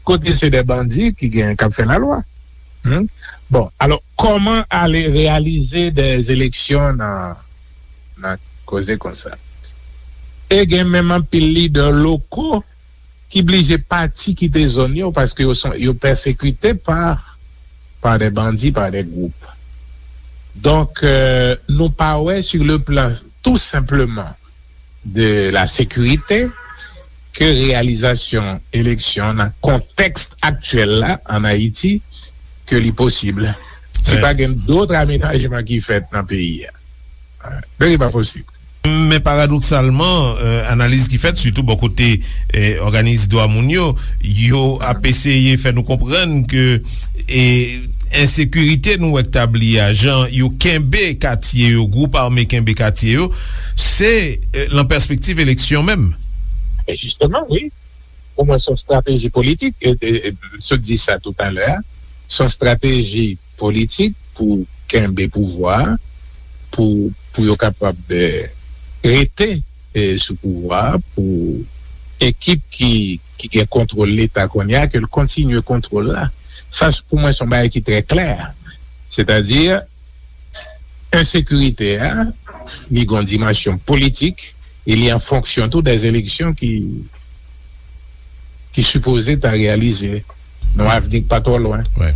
kote se de bandi ki gen, k ap fè lalwa. Hmm? Bon, alò, kòman ale reyalize de eleksyon nan, nan koze konsa? E gen menm anpil lidè loko ki blije pati kite zòn yo paske yo son, yo pèsekite pa, pa de bandi, pa de gwoup. Donk, euh, nou pa wè sur le plan tout simplement de la sécurité ke reyalizasyon eleksyon nan kontèks aktyèl la an Ayiti ke li posib. Si pa gen dòt amenajman ki fèt nan peyi a, men li pa posib. Men paradoksalman, euh, analiz ki fèt, sitou bò kote, euh, òganis dwa moun yo, yo ap eseye fè nou konprann ke, e, ensekirite nou wè k tabli a, jan yo kenbe katye yo, gwoup ame kenbe katye yo, se, euh, lan pèspektiv eleksyon menm. E jisteman, wi. Pou mwen, se yon estrateji politik. E, e, e, m sot di sa toutalè a. Se yon estrateji politik pou kenbe pouvwa a, pou, pou yo kapab, eh, rete, eh, sou pouvwa a, pou ekip ki, ki gen kontwòl Leta kounye a, ke l kontinye kontwòl la. Sa, pou mwen, se yon bagay ki trè klè. Sètadi, ensekirite a, li gen yon dimansyon politik, e li an fonksyon tou dè eleksyon ki, ki sipoze ta reyalize nan yon avni k pa twò lwen. Wi.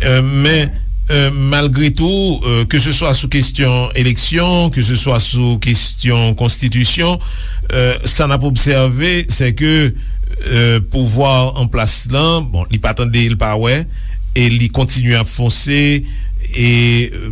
Euh, men, euh, malgre tou, euh, ke se swa sou kesyon eleksyon, ke se swa sou kesyon konstitisyon, euh, sa n ap obsève, se ke, euh, pouvwa an plas lan, bon, li pa tande, li pa wè, e li kontinye ap fonse, e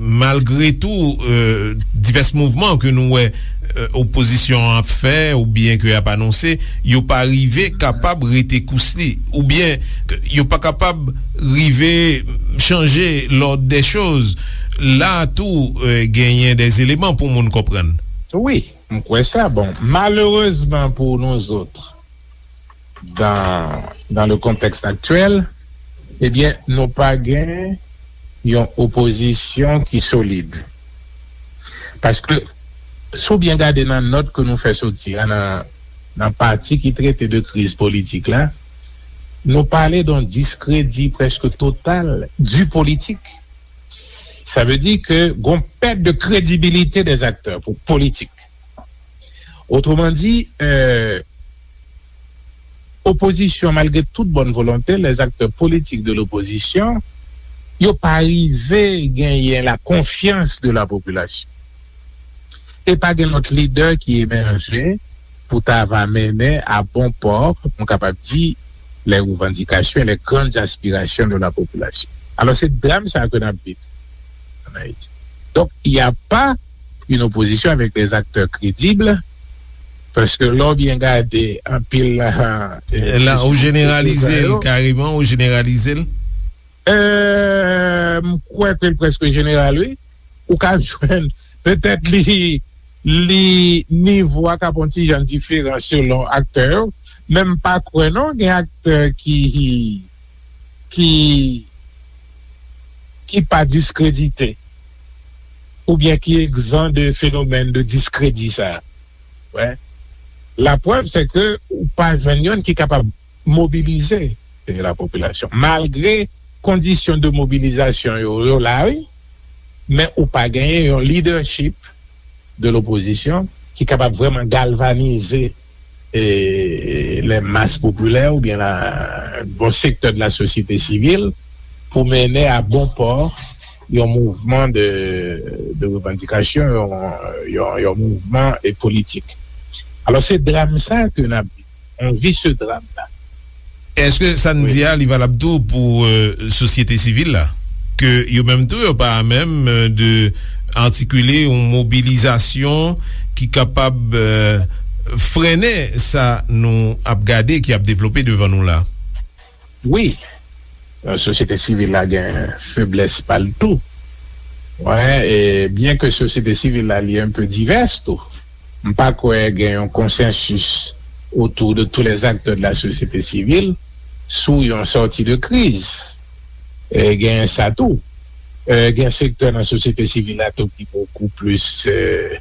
malgre tou, euh, divès mouvman ke nou wè, euh, opozisyon an ap fè oubyen ke y ap anonse, yo pa rive kapab rete kous li, oubyen ke yo pa kapab rive chanje l'ordre des choses. la tou, euh, genyen des éléments pou moun konprann. Wi, m kwè sa. Bon, malerezman pou nou zòt, dans, dans le contexte actuel, ebyen, nou pa gen yon opozisyon ki solid. Paske, si w byen gade nan nòt ke nou fè soti a, nan, nan pati ki trete de kriz politik la, nou pale d'un discrédit presque total du politique. Sa vle di ke gon pèt de kredibilite des acteurs pou politik. Otreman di, euh, opozisyon, malgre tout bòn volonte, les acteurs politiques de l'opposition, yo pa rive genyen la konfyans de la popilasyon. E pa gen lòt lidè ki emèje pou ta va mennen a bon pò, nou kapab di, les revendications et les grandes aspirations de la population. Alò, se dram sa ke n ap viv ann Ayiti. Donk, il y a pas une opposition avec des acteurs crédibles, paske lè w byen gade anpil, euh, la, ou jeneralize l kareman, ou jeneralize l. Euh, m kwè ke l prèske jeneral, wi. Ou ka jwenn, petèt li, li nivo a ka pran ti jan diferan selon aktè yo, men m pa kwè non gen aktè ki, ki, ki pa diskredite oubyen ki egzan de fenomèn de diskredi sa. Wè. Laprèv, se ke ou pa jwenn youn ki kapab mobilize, eh, la popilasyon. Malgre kondisyon de mobilizasyon yo, yo la, wi, men ou pa genyen yon leadership de l'opposition ki kapab vrèman galvanize, eh, les masses populaires oubyen la, bon sektè de la sosyete sivil pou mennen a bon pò yon mouvman de, de revandikasyon, yon, yon, yon mouvman, eh, politik. Alò, se dram sa ke n ap viv, yon visye dram la. Èske sa n di a, li valab tou pou, euh, sosyete sivil la? Ke yo menm tou, yo pa menm, euh, de atikile yon mobilizasyon ki kapab, euh, frennen sa nou ap gade, ki ap devlope devan nou la? Wi, euh, sosyete sivil la gen feblès pa l tou. Wè, e byen ke sosyete sivil la li un peu divès tou, m pa kwè gen yon konsensis autour de tous les acteurs de la société civile sou yon sòti de kriz. E gen sa tou. E gen sektè nan sosyete sivil la tou ki bokou plis, e,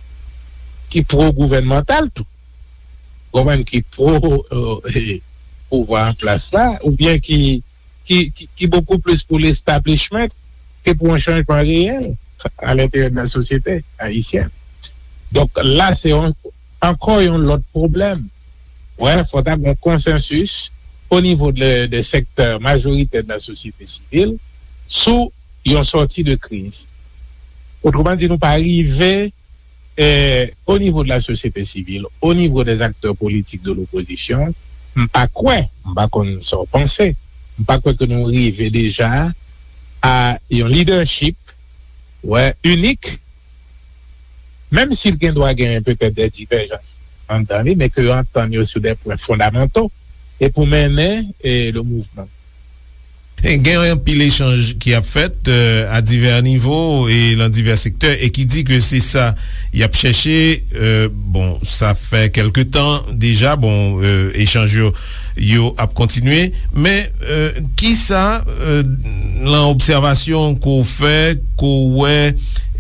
ki pwo-gouvènmantal tou. Konprann, ki pwo, e, pouvwa an plas la, oubyen ki, ki, ki, ki bokou plis pou l'establishment ke pou yon chanjman reyèl a lenteryè de la sosyete ayisyèn. Donk, la, se yon, ankò yon lòt pwoblèm. Wè, fò ta gen yon konsansis o nivo de, de sektè majoritè de la sosyete sivil sou yon sòti de kriz. Otreman di, nou pa rive, eh, o nivo de la sosyete sivil, o nivo des acteurs politiques de l'opposition, m pa kwè, m pa konn sa w panse, m pa kwè ke nou rive deja a yon leadership, wè, inik, menm si l gen dwa genyen petèt de divèjans anndan li, men ke yo antann yo sou de pwen fondamanto e pou mennen, eh, le mouvman. Gen anpil echanj ki ap fèt, euh, à divers niveaux et dans divers secteurs, e ki di ke se sa y ap chèche. Euh, bon, sa fè kèlke tan deja, bon, euh, echanj yo, yo ap kontinye, men, euh, kisa, euh, nan obsèvasyon ke w fè, ke w wè,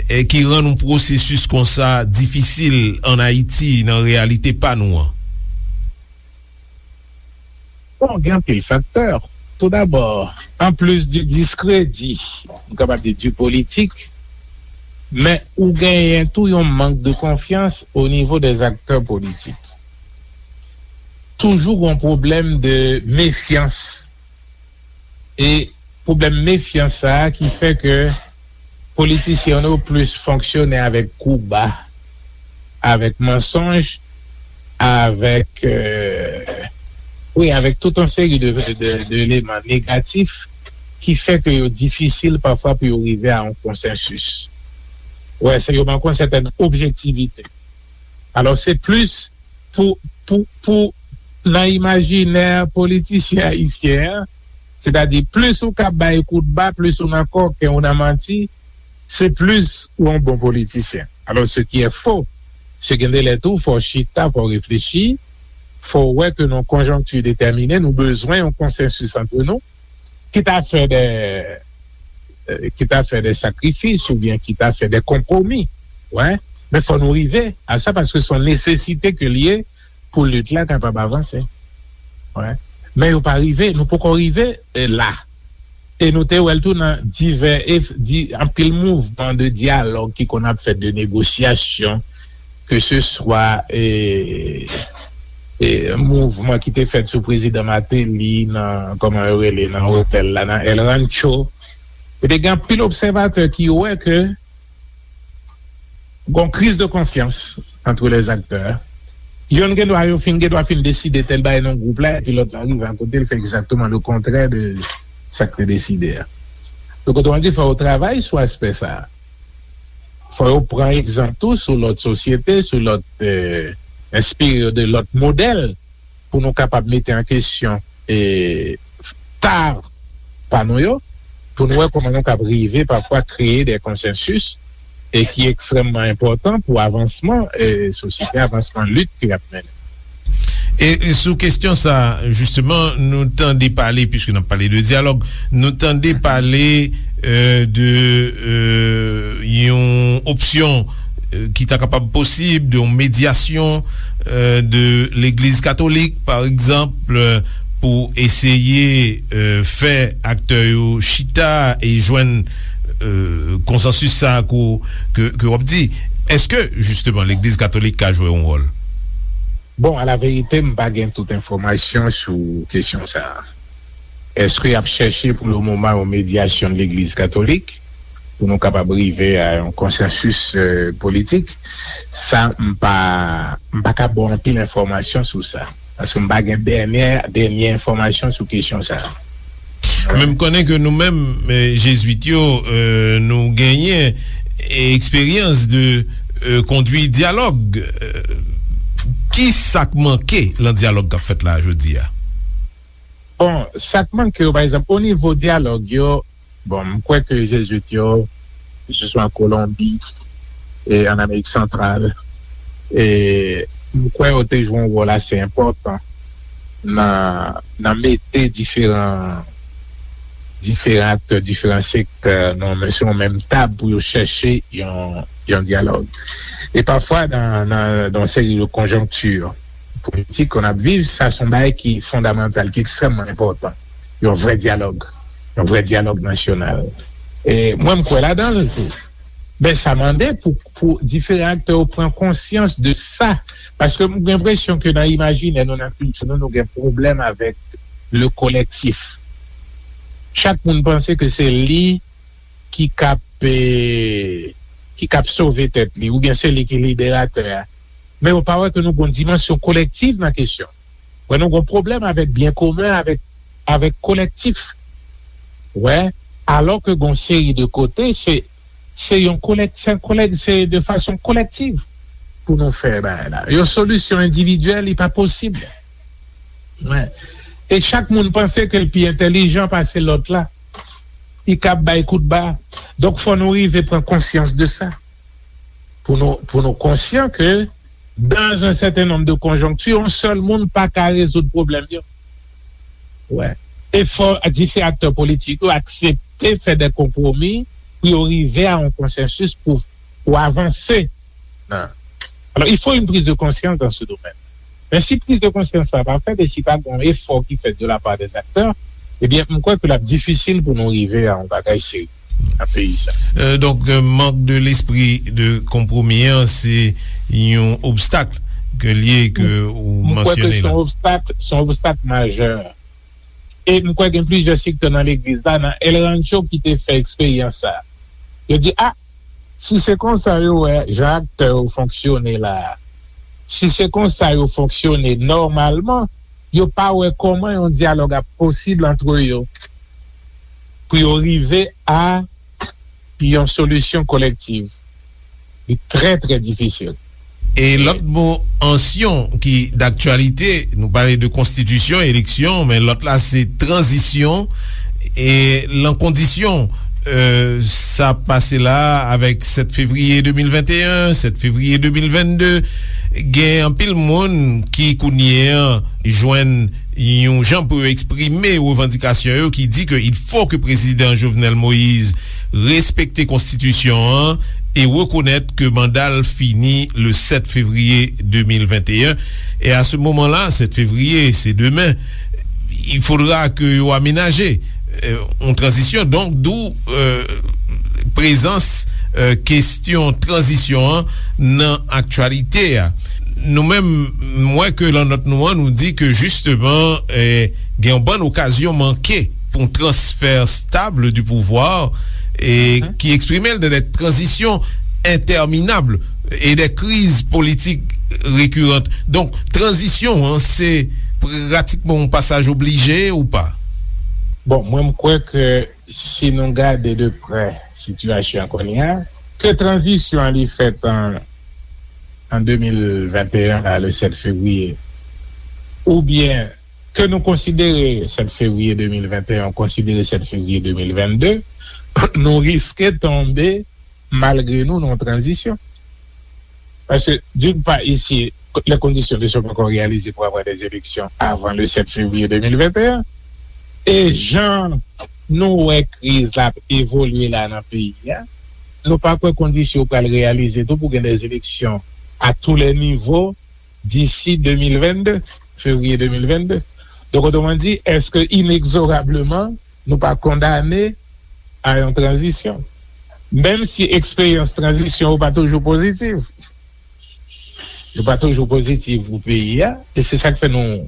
e ki rann yon pwosesis konsa difisil ann Ayiti, nan reyalite pa nou an? Bon, gen anpil faktè. Toudabò, anplis di diskredi, m kapab di di politik, men ou genyen tou yon mank de konfyans o nivo des acteurs politiques. Toujou gen yon pwoblèm de mefyans. E pwoblèm mefyans sa a ki fè ke politisyen yo plis fonksyone avèk kou ba, avèk mansonj, avèk, euh, wi, avèk tout yon seri de, de, de eleman negatif ki fè ke yo difisil pafwa pou yo rive a yon konsansis. Wè, se yo manke yon sètèn objektivite. Alò, se plis pou, pou, pou nan imajinè politisyen ayisyen an, sètadi plis ou ka bay kout ba, plis ou nan kòken, ou nan manti, se plis ou yon bon politisyen. Alò, ce qui est faux, se gen de lè tou, fò w chita, fò w reflechi, fò w wè ke nan yon konjonkti detèmine, nou bezwen yon konsansis ant nou, kit a fè de, euh, kit a fè de sakrifis oubyen kit a fè de konpwomi. Wè. Men fò nou rive a sa paske se yon nesesite ke l ye pou lit la kapab avanse. Wè. Men yo pa rive, nou poko rive, eh, la. E nou te wè l tou nan divè, e, di, anpil mouvman de dyalòg ki konn ap fèt, de negosyasyon, ke se swa, e, e, mouvman ki te fèt sou prezidan Martelly nan, kòman yo rele, nan otèl la, nan El Rancho. E te gen anpil obsèvatè ki wè ke gon kriz de konfyans entre les acteurs. Yonn gen dwa, yo fin gen dwa fin deside tèl bagay nan gwoup la, epi lòt la rive akote, l fè egzakteman le kontrè de sa k te deside a. Donk, otoman di, fò yo travay sou aspè sa a. Fò yo pran egzanp tou sou lòt sosyete, sou lòt, eh, enspire yo de lòt modèl pou nou kapab mete an kesyon, eh, ta pa nou yo, pou nou wè kòman nou kab rive pafwa kreye de konsansis e ki ekstrèmman enpòtan pou avansman, eh, sosyete, avansman lit ke y ap mennen. E, e sou kesyon sa, jisteman, nou tande pale, piske n ap pale de dyalòg, nou tande pale, euh, de, euh, yon opsyon, euh, ki ta kapab posib, de yon medyasyon, euh, de Legliz Katolik, pa egzanp, euh, pou eseye, euh, fè aktè yo chita e jwenn, euh, konsansis sa ke, ke, ke w ap di. Èske, jisteman, Legliz Katolik ka jwe yon wòl? Bon, a la verite, m pa gen tout enfòmasyon sou kesyon sa a. Èske y ap chèche pou le moman yon medyasyon de Legliz Katolik pou nou kapab rive a yon konsansis, euh, politik? Sa, m pa, m pa ka ba w anpil enfòmasyon sou sa. Paske m pa gen dènyè, dènyè enfòmasyon sou kesyon sa a. Men m konnen ke nou menm, eh, Jezwit yo, eh, nou genyen, eh, eksperyans de, eh, kondwi dyalòg. Eh, ki sa k manke lan dyalòg k ap fèt la jodi a? Bon, sa k manke yo, pa egzanp, o nivo dyalòg yo, bon, m kwè ke Jezwit yo, ke se swa an Kolonbi, e an Amerik Santral, e m kwè yo te jwe yon wòl ase enpòtan nan, nan mete diferan, diferan aktè, diferan sektè nan, sou yon menm tab pou yo chèche yon, yon dyalòg. E pafwa, nan, nan, nan yon seri de konjonkti politik ke n ap viv, sa se yon bagay ki fondamantal, ki ekstrèmman enpòtan. Yon vrè dyalòg, yon vrè dyalòg nasyonal. E mwen, m kwè ladan l tou. Men sa mande pou, pou diferan aktè yo pran konsyans de sa. Paske m gen enpresyon ke nan imajinè nou, nan kilti nou, nou gen pwoblèm avèk le kolektif. Chak moun panse ke se li ki kab, eh, ki kab sove tèt li, oubyen se li ki liberatè a. Men yo pa wè ke nou gon dimansyon kolektiv nan kesyon. Wè, nou gon pwoblèm avèk byen komen, avèk, avèk kolektif. Wè, alò ke gon seri de kote, se, se yon kolèk-, se yon kolèk-, se de fason kolektiv pou nou fè bagay la. Yon solisyon endividyèl, li pa posib. Wè. E chak moun panse ke l pi entèlijan pase lòt la. Li kab bay kout ba. Donk, fò nou rive pran konsyans de sa. Pou nou, pou nou konsyan ke, dans un certain nombre de conjonctures, yon sèl moun pa ka rezoud pwoblèm yo. Wè. E fò diferan aktè politik yo aksepte fè de konpwomi pou yo rive a yon konsansis pou, pou avanse. Nan. Alors, il faut une prise de conscience dans ce domaine. Men si priz de konsyans la pa fèt e si pa gen yon efò ki fèt de la part des acteurs, ebyen, m kwè ke l ap difisil pou nou rive a yon bagay serye nan peyi sa. Euh, donk, euh, mank de lespri de konpwomi an, se yon obstak ke l ye ke ou mansyone la. M kwè ke se yon obstak, se yon obstak majè. E m kwè gen plizyè sektè nan legliz la, nan El Rancho ki te fè eksperyans sa. Yo di, a, si se konsa yo wè jan aktè yo fonksyone la a, si se konsa yo fonksyone nòmalman, yo pa wè kòman yon dyalòg ap posib antre yo pou yo rive a yon solisyon kolektiv. Li trè, trè difisil. E lòt mo ansyon ki daktyalite, nou pale de konstitisyon, eleksyon, men lòt la se tranzisyon, e lan kondisyon Euh, sa pase la avèk sèt fevriye de mil venteyen, sèt fevriye de mil vennde. Gen anpil moun ki kounye an jwenn yon jan pou yo eksprime revandikasyon yo, ki di ke il faut que prezidan Jovenel Moïse respekte konstitisyon an e rekonèt ke manda l fini le sèt fevriye de mil venteyen. E a se moman la, sèt fevriye, se demen, il faudra que yo amenaje euh, yon tranzisyon. Donk, d'où euh, prezans euh, kesyon tranzisyon an nan aktyalite a. Nou menm, m wè ke lan nòt nou an, nou di ke jisteman eh, gen yon bann okazyon manke pou yon transfè stab du pouvoir e ki eksprime l dans des transitions interminables et des crises politiques récurrentes. Donk, tranzisyon an, se pratikman yon pasaj oblije ou pa? Bon, mwen m kwè ke si nou gade de prè sitiyasyon an kounye a, ke tranzisyon an li fèt an an de mil venteyen la, le sèt fevriye, oubyen ke nou konsidere sèt fevriye de mil venteyen, konsidere sèt fevriye de mil vennde, nou riske tonbe malgre nou nan yon tranzisyon. Paske, d'une part, ici, les conditions ne sont pas encore réalisées pour avoir des élections avant le sept février deux mille vingt et un. E jan nou wè kriz la ap evolye la nan peyi a, nou pa kwè kondisyon yo pral reyalize tou pou gen des élections à tous les niveaux d'ici deux mille vingt-deux, février deux mille vingt-deux. Donc, autrement dit, est-ce que inexorablement, nou pa kondane a yon tranzisyon? Menm si eksperyans tranzisyon yo pa toujou pozitiv. Yo pa toujou pozitiv pou peyi a. E se sa k fè nou,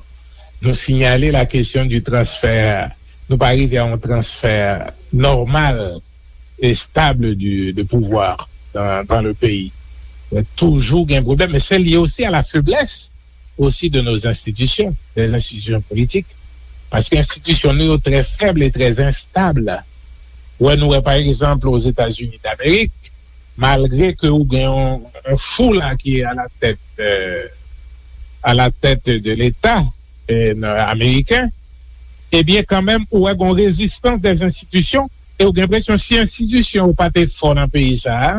nou sinyale la kesyon di transfè. Nou pa rive a yon transfè nòmal e stab di, de pouvwa dan, dan le peyi. Toujou gen pwoblèm. Men se lye osi a la feblès osi de nos institutions, des institutions politiques. Paske enstitisyon nou yo trè fèb e trè enstab. Wè, nou wè, pa egzanp, Ozetazini Damerik, malgre ke ou gen yon, yon fou la ki a la tèt, euh, a la tèt de Leta euh, ameriken, ebyen, kanmenm, ou wè gen rezistans des institutions e ou gen enpresyon si enstitisyon yo pa te fò nan peyi sa a,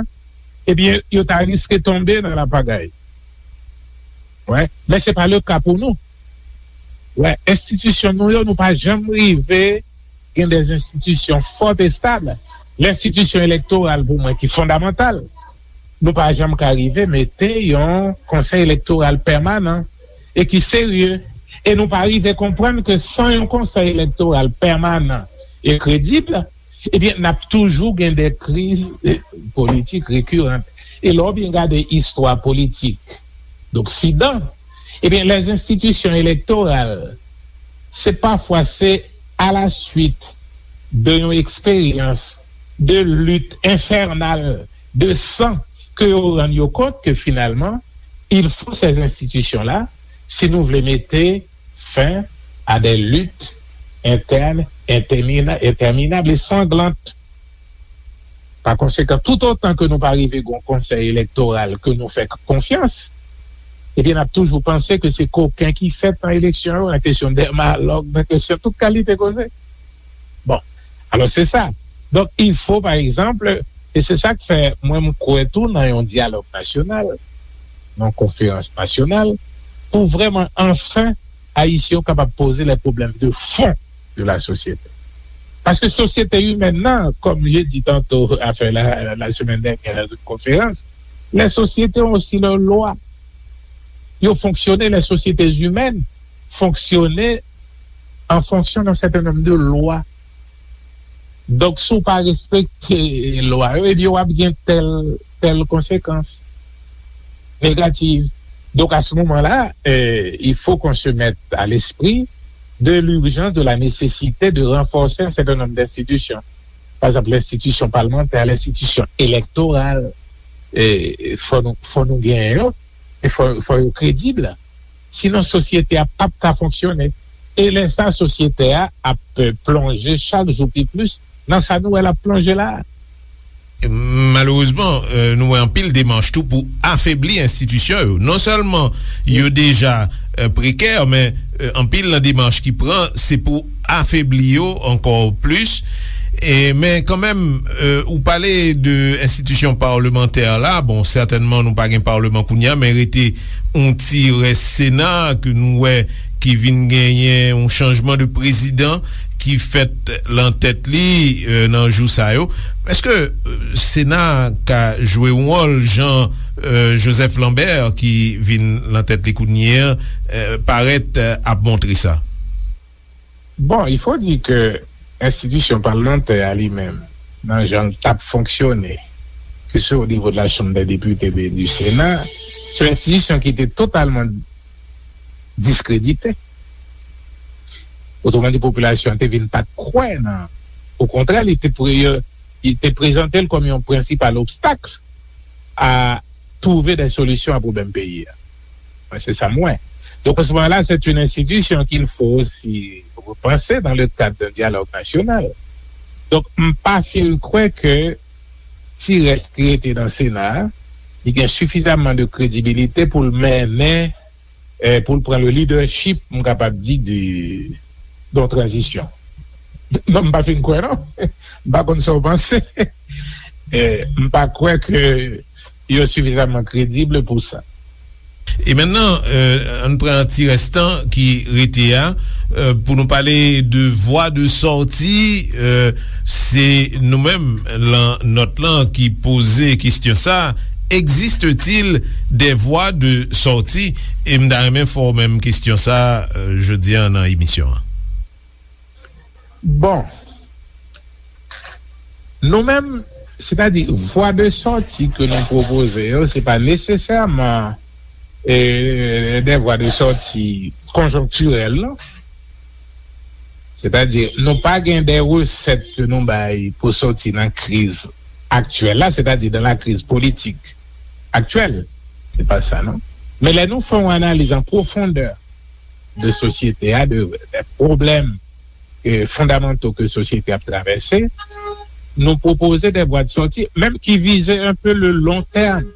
ebyen, yo ta riske tonbe nan lapagay. Wè, men se pa le ka pou nou. Wè, enstitisyon nou yo, nou pa janm rive gen de enstitisyon fò e stab. Lenstitisyon elektoral, pou mwen, ki fondamantal, nou pa janm ka rive mete yon konsèy elektoral pèmanan e ki serye. E nou pa rive konprann ke san yon konsèy elektoral pèmanan e kredib, ebyen, n ap toujou gen de kriz eh, politik rekirant. E lè w byen gade istwa politik d'Oksidan, ebyen, les institutions électorales, se pafwa se a la suite de yon eksperyans de lit enfènal de san ke yo rann yo kont ke finalman, il faut ces institutions-là, si nou vle mete fen a des luttes internes interminables et sanglantes. Pa konsekan, toutotan ke nou pa rive gen yon konsèy elektoral ke nou fè konfyans, ebyen, n ap toujou panse ke se koken ki fèt nan eleksyon yo, nan kesyon dèmalòg, nan kesyon tout kalite koze. Bon, alò se sa. Donk, il faut, par exemple, e se sa k fè mwen m kwè tou nan yon dyalòg nasyonal, nan konferans nasyonal, pou vrèman anfen Ayisyen yo kapab poze les problèmes de fond de la société. Paske sosyete imèn nan, comme j'ai dit tantôt, enfin, la, la semaine dernière, dans une conférence, les sociétés ont aussi leurs lois. Yo fonksyone, les sociétés humaines fonksyone an fonksyon d'un certain nombre de lois. Donk, si w pa respekte lwa yo, ebyen, w ap gen tèl, tèl konsekans negatif. Donc, à ce moment-là, euh, il faut qu'on se mette à l'esprit de l'urgence, de la nécessité de renforcer un certain nombre d'institutions. Par exemple, l'institution parlementaire, l'institution électorale, e fò nou, fò nou genyen yo, e fò, fò yo kredib. Sinon, sosyete a p ap ka fonksyone. E lè sa, sosyete a ap plonje chak jou pi plis nan sa nou wè l ap plonje la a. Malerezman, euh, nou wè anpil demach tou pou afebli enstitisyon yo. Non sèlman yo deja euh, prekè, men euh, anpil nan demach ki pran, se pou afebli yo ankò plis. E, men kanmenm, e, ou pale de enstitisyon palmantè la, bon, sètènman nou pa gen palman kounye a, men rete yon ti rès Sena ke nou wè ki vin genyen yon chanjman de prezidan ki fèt lan tèt li, e, nan jou sa yo. Èske, e, Sena ka jwe yon wòl jan, e, Joseph Lambert ki vin lan tèt li kounye a, e, parèt, e, ap montre sa? Bon, il faut dire que enstitisyon palmantè a li menm, nan jan l t ap fonksyone, ke se o nivo de la Chambre des députés, de, du Sénat, se yon enstitisyon ki te totalman diskredite. Otreman di, popilasyon an te vin pa t kwè nan, okontrè, li te pre-, li te prezante l kòm yon prensipal obstak a twouve de solisyon a pwoblèm peyi a. Mwen, se sa m wè. Donk, an se moman la, c'est une institution qu'il faut aussi repenser dans le cadre d'un dialogue national. Donk, m pa fin kwè ke ti rès ki rete nan Sena a, li gen sifizaman de kredibilite pou l mennen, eh, pou l pran le leadership, m kapab di, de, de yon tranzisyon. Non, m pa fin kwè, non. M pa konn sa w panse. Eh, m pa kwè ke yo sifizaman kredib pou sa. E mentnan, euh, ann pran ti rès tan ki rete a, euh, pou nou pale de vwa de sòti, euh, se nou menm lan nòt lan ki poze kesyon sa, existe-t-il des voies de sortie? E m ta renmen fè w menm kesyon sa, euh, jodi a nan emisyon an. Bon. Nou menm, sètadi, vwa de sòti ke nou pwopoze yo, se pa nesesèman, e, de vwa de sòti konjonktirèl, non. Sètadi, nou pa gen de resèt ke nou bay pou sòti nan kriz aktyèl la, sètadi dans la crise politique actuelle. Se pa sa, non. Men lè nou fè yon analiz an pwofondè de sosyete a, de, de pwoblèm, e, fondamanto ke sosyete ap travèse, nou pwopoze de vwa de sòti, menm ki vize un peu le long terme.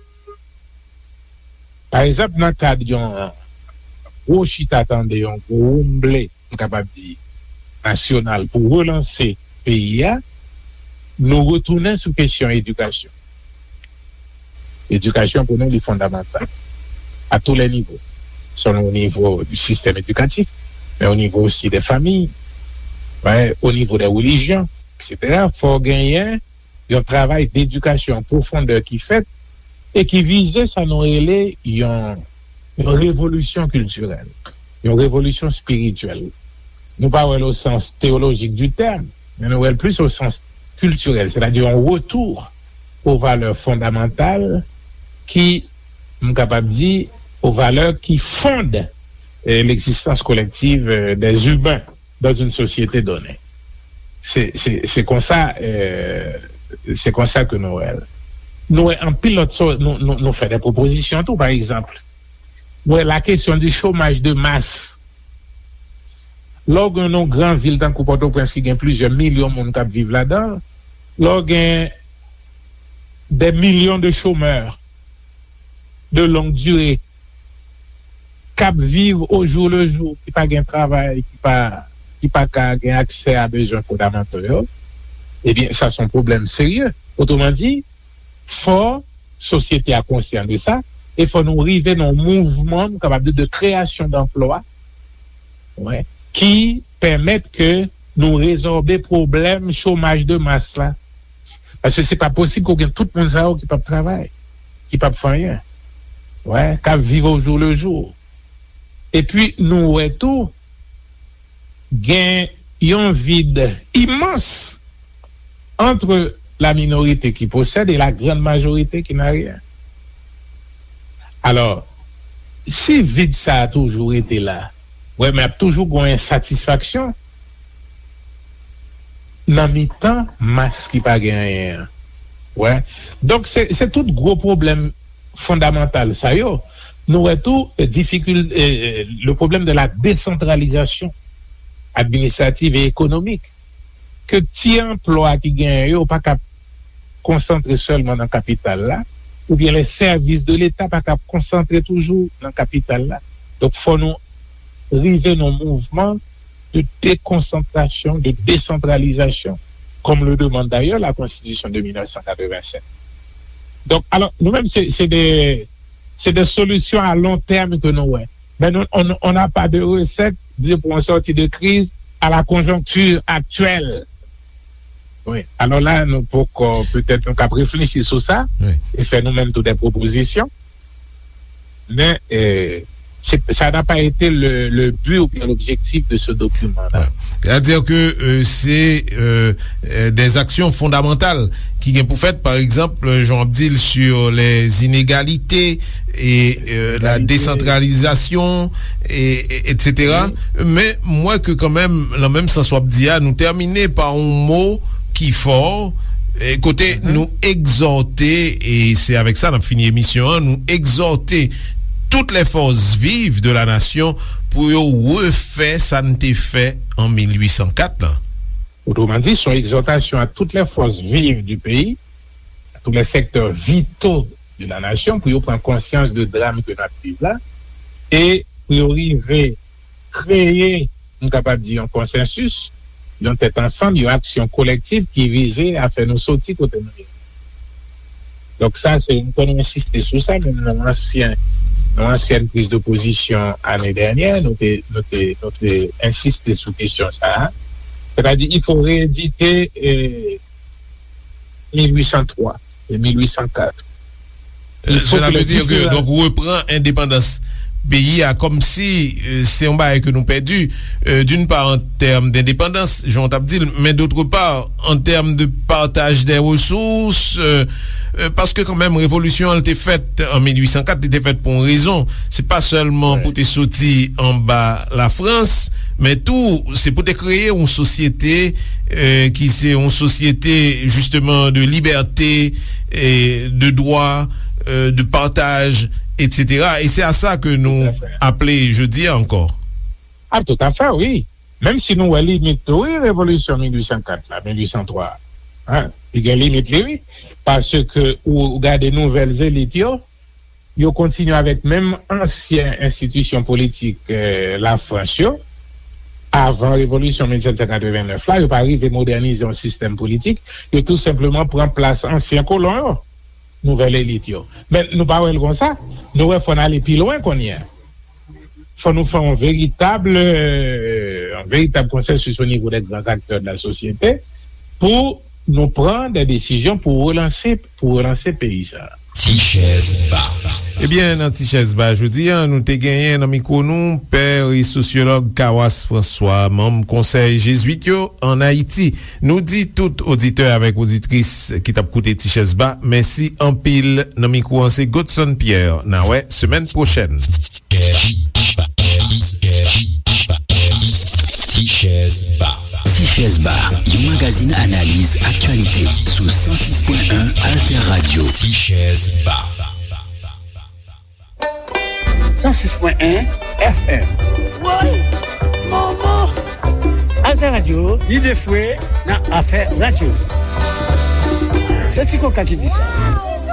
Pa egzanp, nan kad yon gwo chita tande, yon gwo woumble, m kapab di, nasyonal pou relanse peyi a, nou retounen sou kesyon edikasyon. Edikasyon pou nou, li fondamantal. À tous les niveaux. Selon au niveau du système éducatif, men au niveau aussi des familles, ouais, au niveau des religions, et cetera. Fò genyen yon travay dedikasyon an pwofondè ki fèt e ki vize sa nou rele yon, yon revolisyon kiltirèl, yon revolisyon espirityèl. Nou pa wè l o sans teyolojik di tèm, men nou wè l plis o sans kiltirèl, sètadi yon retou o valè fondamantal ki, m kapab di, o valè ki fonde, eh, l'existence collective, eh, des humains dans une société donnée. Se, se, se konsa, eh, se konsa ke nou wè l. Nou wè anpil lòt sòt, nou, nou, nou fè de pwopozisyon tou, pa egzanp. Nou wè la kesyon di chomaj de mas. Lè w gen yon gran vil tankou Pòtoprens ki gen plizyè milyon moun k ap viv ladan l, lè w gen des millions de chômeurs de longue durée k ap viv au jour le jour, ki pa gen travay, ki pa, ki pa ka gen aksè a bezwen fondamanto yo, ebyen, sa se yon pwoblèm serye. Otreman di, fò sosyete a konsyan de sa, e fò nou rive nan yon mouvman, nou kapab di, de kreyasyon danplwa, wi, ki pèmèt ke nou rezòbe pwoblèm chomaj de mas la. Paske se pa posib ke w gen tout moun sa yo ki p ap travay, ki p ap fè anyen. Wi, k ap viv au jour le jour. Epi nou wè tou, gen yon vid imans entre la minorité qui possède et la grande majorité qui n'a rien. Alò, si vid sa a toujou rete la, wè, men ap toujou gen yon ensatisfaksyon nan mitan mas ki pa gen anyen an. Wè. Donk, se, se tout gwo pwoblèm fondamantal sa yo. Nou wè tou, eh, difikil-, eh, eh, le problème de la décentralisation administrative et économique. Ke ti anplwa ki genyen yo pa ka konsantre sèlman nan kapital la, oubyen les services de l'État pa ka konsantre toujou nan kapital la. Donk, fò nou rive nan mouvman de déconcentration, de décentralisation. comme le demande d'ailleurs la Constitution de mille neuf cent quatre-vingt-sept. Donk, alò, nou menm, se, se de, se de solutions à long terme que nou wè. Men nou, on, on n'a pas de recette, di, pour on sortir de crise à la conjoncture actuelle. Wi. Alò la, nou poko, petèt, nou kab reflechi sou sa e fè nou menm tou de pwopozisyon. Men, euh, c'est, ça n'a pas été le, le but ou bien l'objectif de ce document-là. Sètadi ke, euh, se, euh, euh, des actions fondamentales ki gen pou fèt, pa egzanp, jan w ap di l, sur les inégalités et, euh, la décentralisation, et, et, et cetera. Men m wè ke kanmenm, nan menm sans w ap di a, nou tèmine pa yon mo ki fò, e kote nou egzòte, e se avèk sa n ap fini emisyon an, nou egzòte toutes les forces vives de la nation pou yo refè sa n te fè an mil uit san kat lan. Autrement dit, c'est une exhortation à toutes les forces vives du pays, à tous les secteurs vitaux de la nation, pou yo pran konsyans de dram ke n ap viv la, e pou yo rive kreye, m kapab di, yon konsansis, yon tèt ansanm, yon aksyon kolektif ki vize a fè nou soti kote nou ye. Donk sa, se, m konn nou ensiste sou sa, menm nan ansyen, nan ansyèn priz de pozisyon ane dènyè, nou te, nou te, nou te ensiste sou kesyon sa a. Sètadi, il faut rééditer, eh, mil uit san twa e mil uit san kat. Sela vle di ke, donk, repran endepandans peyi a kòmsi, euh, se yon bagay ke nou pèdi, euh, d'une part, en termes d'indépendance, jan w t ap di l, men d'autre part, en termes de partage des ressources, euh, euh, paske kanmenm, revolisyon an te fèt an mil uit san kat, li te fèt pou yon rezon. Se pa sèlman pou te soti anba Lafrans, men tou, se pou te kreye yon sosyete, euh, ki se yon sosyete, justement, de liberté, et de droit, euh, de partage, et cetera. E se a sa ke nou aple jodi a ankò. Ah, tout à fait, wi. Menm si nou wè limit tou, wi, revolisyon mil uit san kat la, mil uit san twa, hein, li gen limit li, wi. Paske ou, ou gade nouvèl elit yo, yo kontinye avèk menm ansyen enstitisyon politik, eh, Lafrans yo, avan revolisyon mil sèt san katreven nèf la, yo pa rive modènize yon sistèm politik, yo tou senpleman pran plas ansyen kolon yo, nouvèl elit yo. Men nou pa wè l konsa, nou wè fò n ale pi lwen kounye a. Fò nou fè yon veritab, euh, yon veritab konsansis o nivo dè gran aktè de la sosyete pou nou pran de desizyon pou relanse, pou relanse peyi sa a. Ti chèz ba. Ebyen, nan Ti chèz ba jodi a, nou te genyen nan mikwo nou pè e sosyològ Kawas François, manm Konsèy Jezwit yo ann Ayiti. Nou di tout oditè avèk oditris ki t ap koute Ti chèz ba, mèsi anpil. Nan mikwo an, se Godson Pierre. N a wè semèn pwochèn. Ti chèz ba. Ti chèz ba, yon magazin analiz aktyalite sou san sis pwen en Alter Radio. Ti chèz ba. San sis pwen en F M. Woy! Manman! Alter Radio, lide fwe nan afè radyo. Se Ti Koka ki di sa.